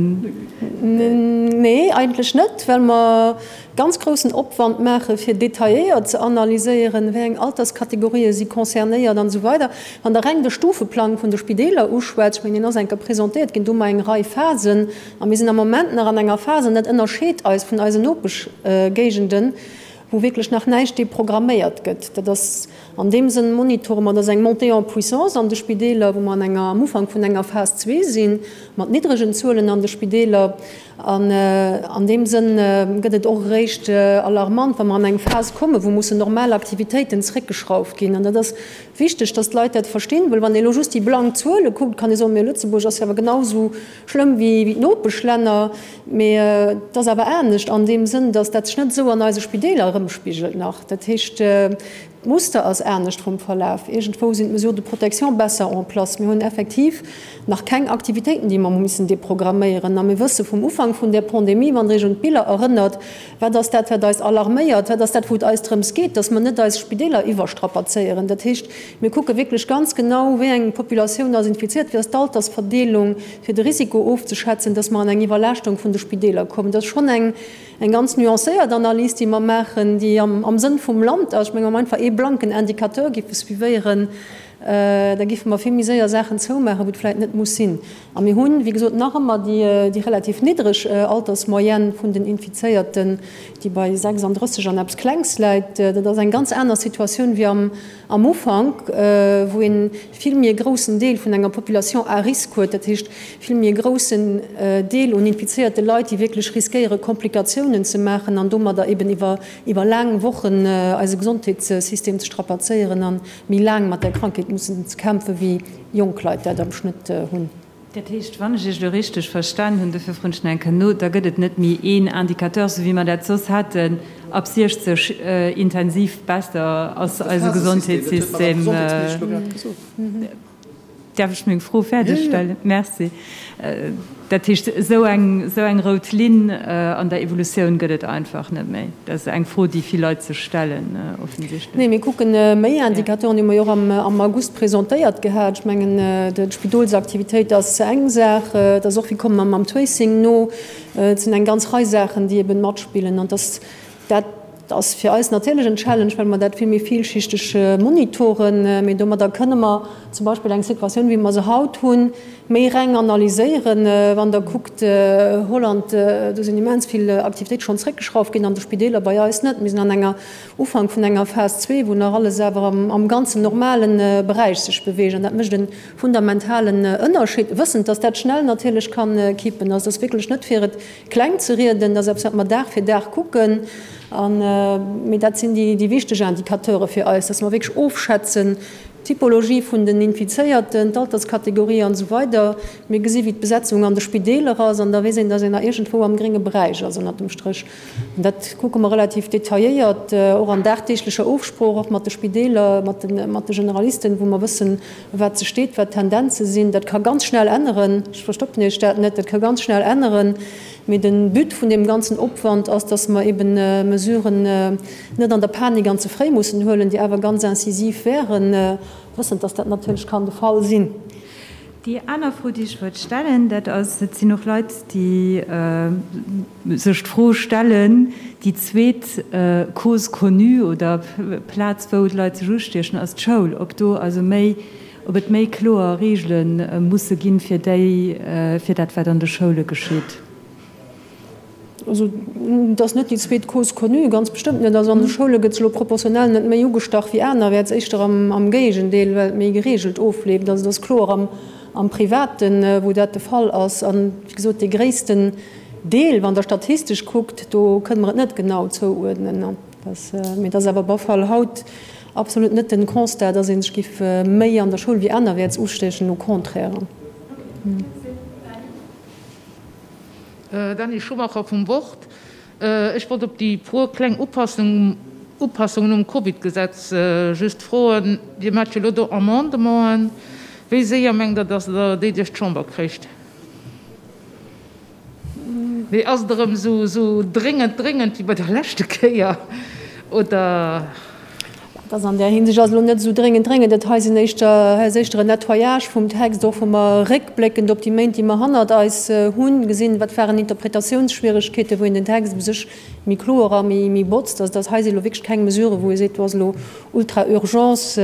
Nee, eigentlech net, well mer ganz groussen Opwand maache fir detailléiert ze analyséieren, wéi eng Alterskategorië si concernéiert an esou weider. Wann Der reng de Stufeplang vun de Spideeler uschwätzt, ech mengen, deen ass eng Kéier presentéiert ginn, do hu mer eng Rei Phasen a mir sinn am Moment nach an enger Phas, an dat ënnerscheet eis vun eisen Nopeschgéigenden, wou wierklech nach näischt deprogramméiert gëtt. Dat ass An deem Sënn monitore mer, dass eng Montée en puissance an de Spideeler, wou mer an enger, am Ufank vun enger Phas zwee sinn, mat niddregen Zuelen an de Spideeler. An an deem Sënn gëtt et och eréischt alarmant, wa mer an eng Phas kommen, wou mussen normal Aktivitéiten zréckgeschrauft ginn. An dat ass wichteg, dass d'Leit dat verstinn, well wann ee elo just déi blank Zuele kuckt, kann ee soen, Mee Lëtzebuerg ass jo awer genau esou schlëmm wéi d'Nopeschlänner. Mee et ass awer anescht an deem Sënn, dass dat sech net esou an eise Spideeler erëmspigelt nach. Dat heescht, D'Muster ass anescht vum Verlaf. Iergendwou sinn d'Mesures de protection besser en place. Mir hunn effektiv nach keng Aktivitéiten, déi mer hu missen deprogramméieren. A mir wësse vum Ufank vun där Pandemie, wann Der Iech un d'Biller erënnert, wat ass dat, wat eis alarméiert, wat ass dat, wou et eis drëms geet, dass mer net eis Spideeler iwwerstrapazéieren. Dat heescht, mir kucke wierklech ganz genau, wéi eng Populatioun ass infiziert, wéi ass d'Altersverdeelung, fir de Risiko ofzeschätzen, dass mer an eng Iwwerlaaschtung vun de Spideeler kommen. Dat ass schonn eng Eng ganz nuancéiert Analys, déi mer maachen, déi am Sënn vum Land ass. Ech mengen, wa mer einfach ee blanken Indicateur géife suivéieren, da géife mer vill méi séier Saachen zoumaachen, wou et vläicht net muss sinn. A mir hunn, wéi gesot, nach ëmmer déi relativ niddreg Altersmoyenne vun den Infizéierten, déi bei 36 an eppes Klengs läit. Dat ass eng ganz aner Situatioun wéi am Am Ufank, wou een vill méi e groussen Deel vun enger Population à risque huet, dat heescht vill méi e groussen Deel un infizéierte Leit, déi wierklech riskéiere Komplikatiounen ze maachen an domadder eben iwwer iwwer laang Wochen eise Gesondheetssystem ze strapazéieren a méi laang mat där Krankheet mussen ze kämpfen, wéi jonk Leit dat am Schnëtt hunn. Dat heescht, wann ech Iech elo richteg verstan hunn, dofir froen ech nach eng Kéier no, da gëtt et net méi een Indicateur, sou wéi mer dat soss haten, ab 60 Intensivbetter ass eise Gesondheetssystem. Däerf ech meng Fro fäerdeg stellen? Merci. Dat heescht, esou eng, esou eng rout Linn an der Evolutioun gëtt et einfach net méi. Dat ass eng Fro, déi vill Leit sech stellen, offensichtlech. Nee, mir kucken méi Indicateuren, déi hu mer jo och am August presentéiert gehat. Ech mengen, d'Spidolsaktivitéit ass eng Saach, et ass och, wéi komme mer mam Tracing no. Et sinn eng ganz Rei Saachen, déi eben matspillen. An dass dat ass fir eis natierlech en Challenge, well mer dat vill méi villschichteg monitoren. Mee domadder kënne mer zum Beispill eng Situatioun, wéi mer se haut hunn, méi reng analyséieren. Wann Der kuckt, Holland, do sinn immens vill Aktivitéite schonn zréckgeschrauft ginn an de Spideeler, bei eis net. Mir sinn an enger Ufank vun enger Phas zwee, wou nach alles awer am ganzen normale Beräich sech beweegt. An dat mécht e fundamentalen Ënnerscheed, wëssend, dass dat schnell natierlech ka kippen. Also et ass wierklech net fir et kleng ze rieden, dat ass eppes, wat mer Dag fir Dag kucken. An, mee dat sinn déi wichteg Indicateure fir eis, dass mer wierklech ofschätzen, d'Typologie vun den Infizéierten, d'Alterskategorie an esou weider. Mir gesi wéi d'Besetzung an de Spideeler ass an da weess een, dass een nach iergendwou am grénge Beräich ass ënnert dem Stréch. An dat kucke mer relativ detailléiert, och an dagdeeglecher Ofsprooch, och mat de Spideeler, mat de, mat de Generalisten, wou mer wëssen, wat se steet, wat d'Tendenze sinn. Dat ka ganz schnell änneren, ech verstoppen Iech dat net, dat ka ganz schnell änneren. Mee de But vun deem ganzen Opwand ass, dass mer eben Mesuren net an der Panik an ze fréi mussen huelen, déi awer ganz incisiv wären, wëssend, dass dat natierlech kann de Fall sinn. Déi aner Fro, déi ech wollt stellen, dat ass, et sinn och Leit, déi sech d'Fro stellen, déi zweet Cause connue oder Plaz, wou d'Leit sech ustiechen, ass d'Schoul, ob do also méi, ob et méi kloer Reegele musse ginn, fir déi, fir dat, wat an de Schoule geschitt. Also, et ass net déi zweet Cause connue, ganz bestëmmt net. Also an de Schoule gëtt se elo proportionell net méi ugestach wéi anerwäerts, éischter am Géigendeel, well et méi gereegelt ofleeft. Also et ass kloer am Privaten, wou dat de Fall ass. An, wéi gesot, dee gréissten. Deel, wann Der statistesch kuckt, do kënne mer et net genau zouuerdnen. Mee et ass awer op alle Fall haut absolut net den Constat, dass ee sech giff méi an der Schoul wéi anerwäerts ustechen, au contraire. Dany Schumacher vum Wort. Ech wollt op déi puer kleng Upassungen um Covid-Gesetz just froen. Dir maacht jo elo do Amendementen. Wéi séier mengt Der, datt Der déi duerch d'Chamber kréicht? Mee ass et erëm esou dréngend, dréngend wéi bei der leschte Kéier, oder? Et ass an där Hinsicht ass elo net esou dréngend, dréngend. Dat hei sinn éischter, hei ass éischter en Nettoyage vum Text, och wou mer réckbléckend op déi Méint, déi mer hannert eis hunn, gesinn, wat waren Interpretatiounsschwieregkeeten, wou een den Text u sech méi kloer a méi, méi botzt. Also dat hei si elo wierklech keng Mesuren, wou ee seet, do ass elo ultra Urgence.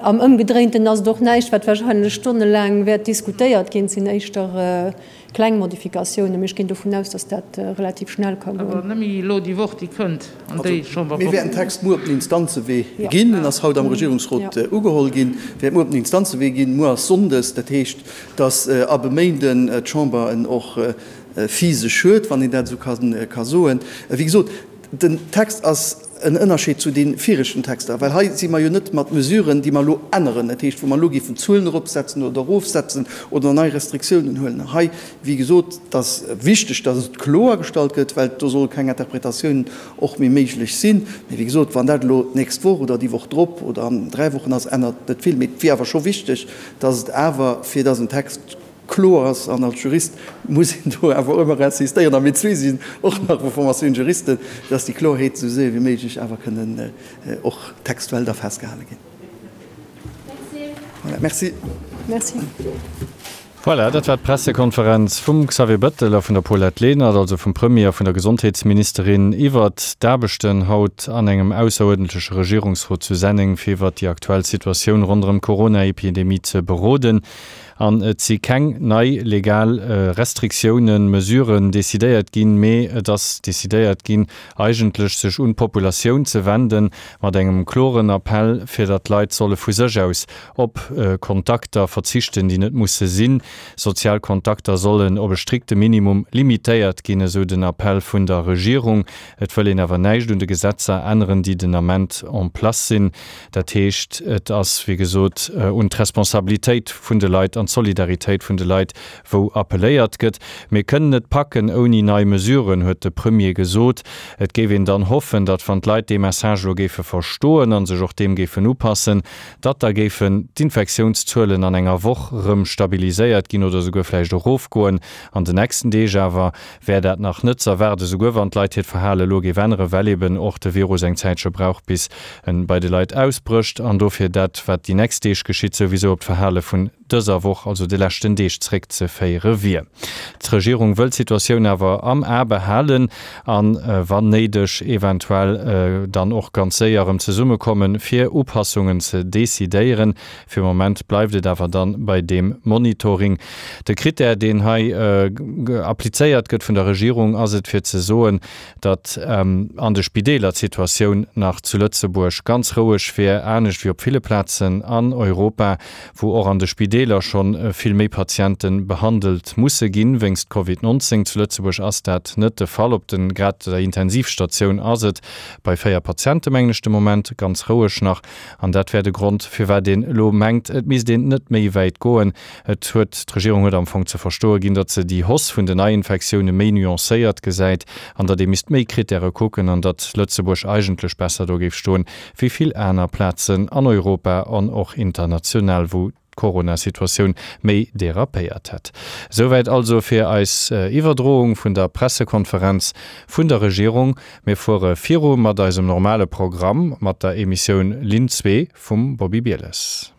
Am Ëmgedréinten ass et och näischt, wat wahrscheinlech stonnelaang wäert diskutéiert ginn. Et sinn éischter Kleng Modifikatiounen, mee ech ginn dovun aus, dass dat relativ schnell ka goen. Awer nëmme elo déi Woch, déi kënnt, an déi Chamberwoch. Mir wäerten Text muer op den Instanzewee ginn. En ass haut am Regierungsrot ugeholl ginn, wäert muer op den Instanzewee ginn. Muer ass Sonndes, dat heescht, dass ab e Méinden d'Chamber en och physesch huet, wann een dat esou ka soen. Wéi gesot, den Text ass En Ënnerscheed zu de viregten Texter, well hei si mer jo net mat Mesuren, déi mer elo änneren, dat heescht, wou mer elo géifen Zuelen eropsetzen oder erofsetzen oder nei Restriktiounen huelen. Hei, wéi gesot, et ass wichteg, dass et kloergestallt gëtt, well do solle keng Interpretatiounen och méi méiglech sinn. Mee wéi gesot, wann dat elo d'nächst Woch oder déi Woch drop oder an 3 Wochen ass, ännert net vill. Mee et wier awer scho wichteg, dass et awer, fir dass en Text kloer ass, an als Jurist muss een do awer ëmmer insistéieren, a mir zwee sinn och nach vu Formatioun Juristen, dass déi Klorheet esou séier wéi méiglech awer kënnen och textuell da festgehale ginn. Voilà, merci. Merci. Voilà, dat war d'Pressekonferenz vum Xavier Bettel a vun der Paulette Lenert, also vum Premier a vun der Gesondheetsministerin, iwwert d'Aarbechten haut an engem ausseruerdentleche Regierungsrot zu Senneng, fir iwwert déi aktuell Situatioun ronderëm d'Corona-Epidemie ze beroden. An et si keng nei legal Restriktiounen, Mesuren decidéiert ginn, mee et ass decidéiert ginn, eigentlech sech un d'Populatioun ze wenden, mat engem kloren Appell, fir datt d'Leit solle vu sech aus op Kontakter verzichten, déi net musse sinn. Sozial Kontakter sollen op e strikte Minimum limitéiert ginn, esou den Appell vun der Regierung. Et wëll een awer näischt un de Gesetzer änneren, déi den Ament en place sinn. Dat heescht, et ass, wéi gesot, un d'Responsabilitéit vun de Leit an d'Solidaritéit vun de Leit, wou appelléiert gëtt. Mir kënnen et packen ouni nei Mesuren, huet de Premier gesot. Et géif een dann hoffen, datt wann d'Leit dee Message elo géife verstoen a sech och deem géifen upassen, datt da géifen d'Infektiounszuelen an enger Woch rëm stabiliséiert ginn oder souguer vläicht erofgoen. An den nächsten Deeg awer wär dat nach net z'erwaarden, souguer wann d'Leit hiert Verhale elo géif änneren, well eben och de Virus eng Zäitche brauch, bis en bei de Leit ausbrécht an dofir dat, wat déi nächst Deeg geschitt, souwisou op d'Verhale vun dëser Woch, also de leschten Deeg, zréckzeféiere wier. D'Regierung wëll d'Situatioun awer am A behalen an, wann néideg, eventuell dann och ganz séier erëm zesummekommen, fir Upassungen ze decidéieren. Fir Moment bleift et awer dann bei deem Monitoring. De Critère, deen hei applizéiert gëtt vun der Regierung, ass et fir ze soen, datt an de Spideeler d'Situatioun nach zu Lëtzebuerg ganz roueg wier, anescht wéi op ville Plazen an Europa, wou och an de Spideeler scho vill méi Patiente behandelt musse ginn wéinst Covid 19. Zu Lëtzebuerg ass dat net de Fall. Op de grad der Intensivstatioun ass et bei 4 Patiente mengen ech de Moment ganz roueg nach. An dat wär de Grond, firwat een elo mengt, et misst een net méi wäit goen. Et huet, d'Regierung huet am Fong ze verstoe ginn, datt se déi Hausse vun den Neiinfektioune méi nuancéiert gesäit an datt ee misst méi Krittäre kucken an datt Lëtzebuerg eigentlech besser do géif stoen, wéi vill aner Plazen an Europa an och international, wou d'Corona-Situatioun méi derapéiert hätt. Esouwäit also fir eis Iwwerdroung vun der Pressekonferenz vun der Regierung. Mir fuere viru mat eisem normale Programm, mat der Emissioun Linn zwee vum Bobby Bieles.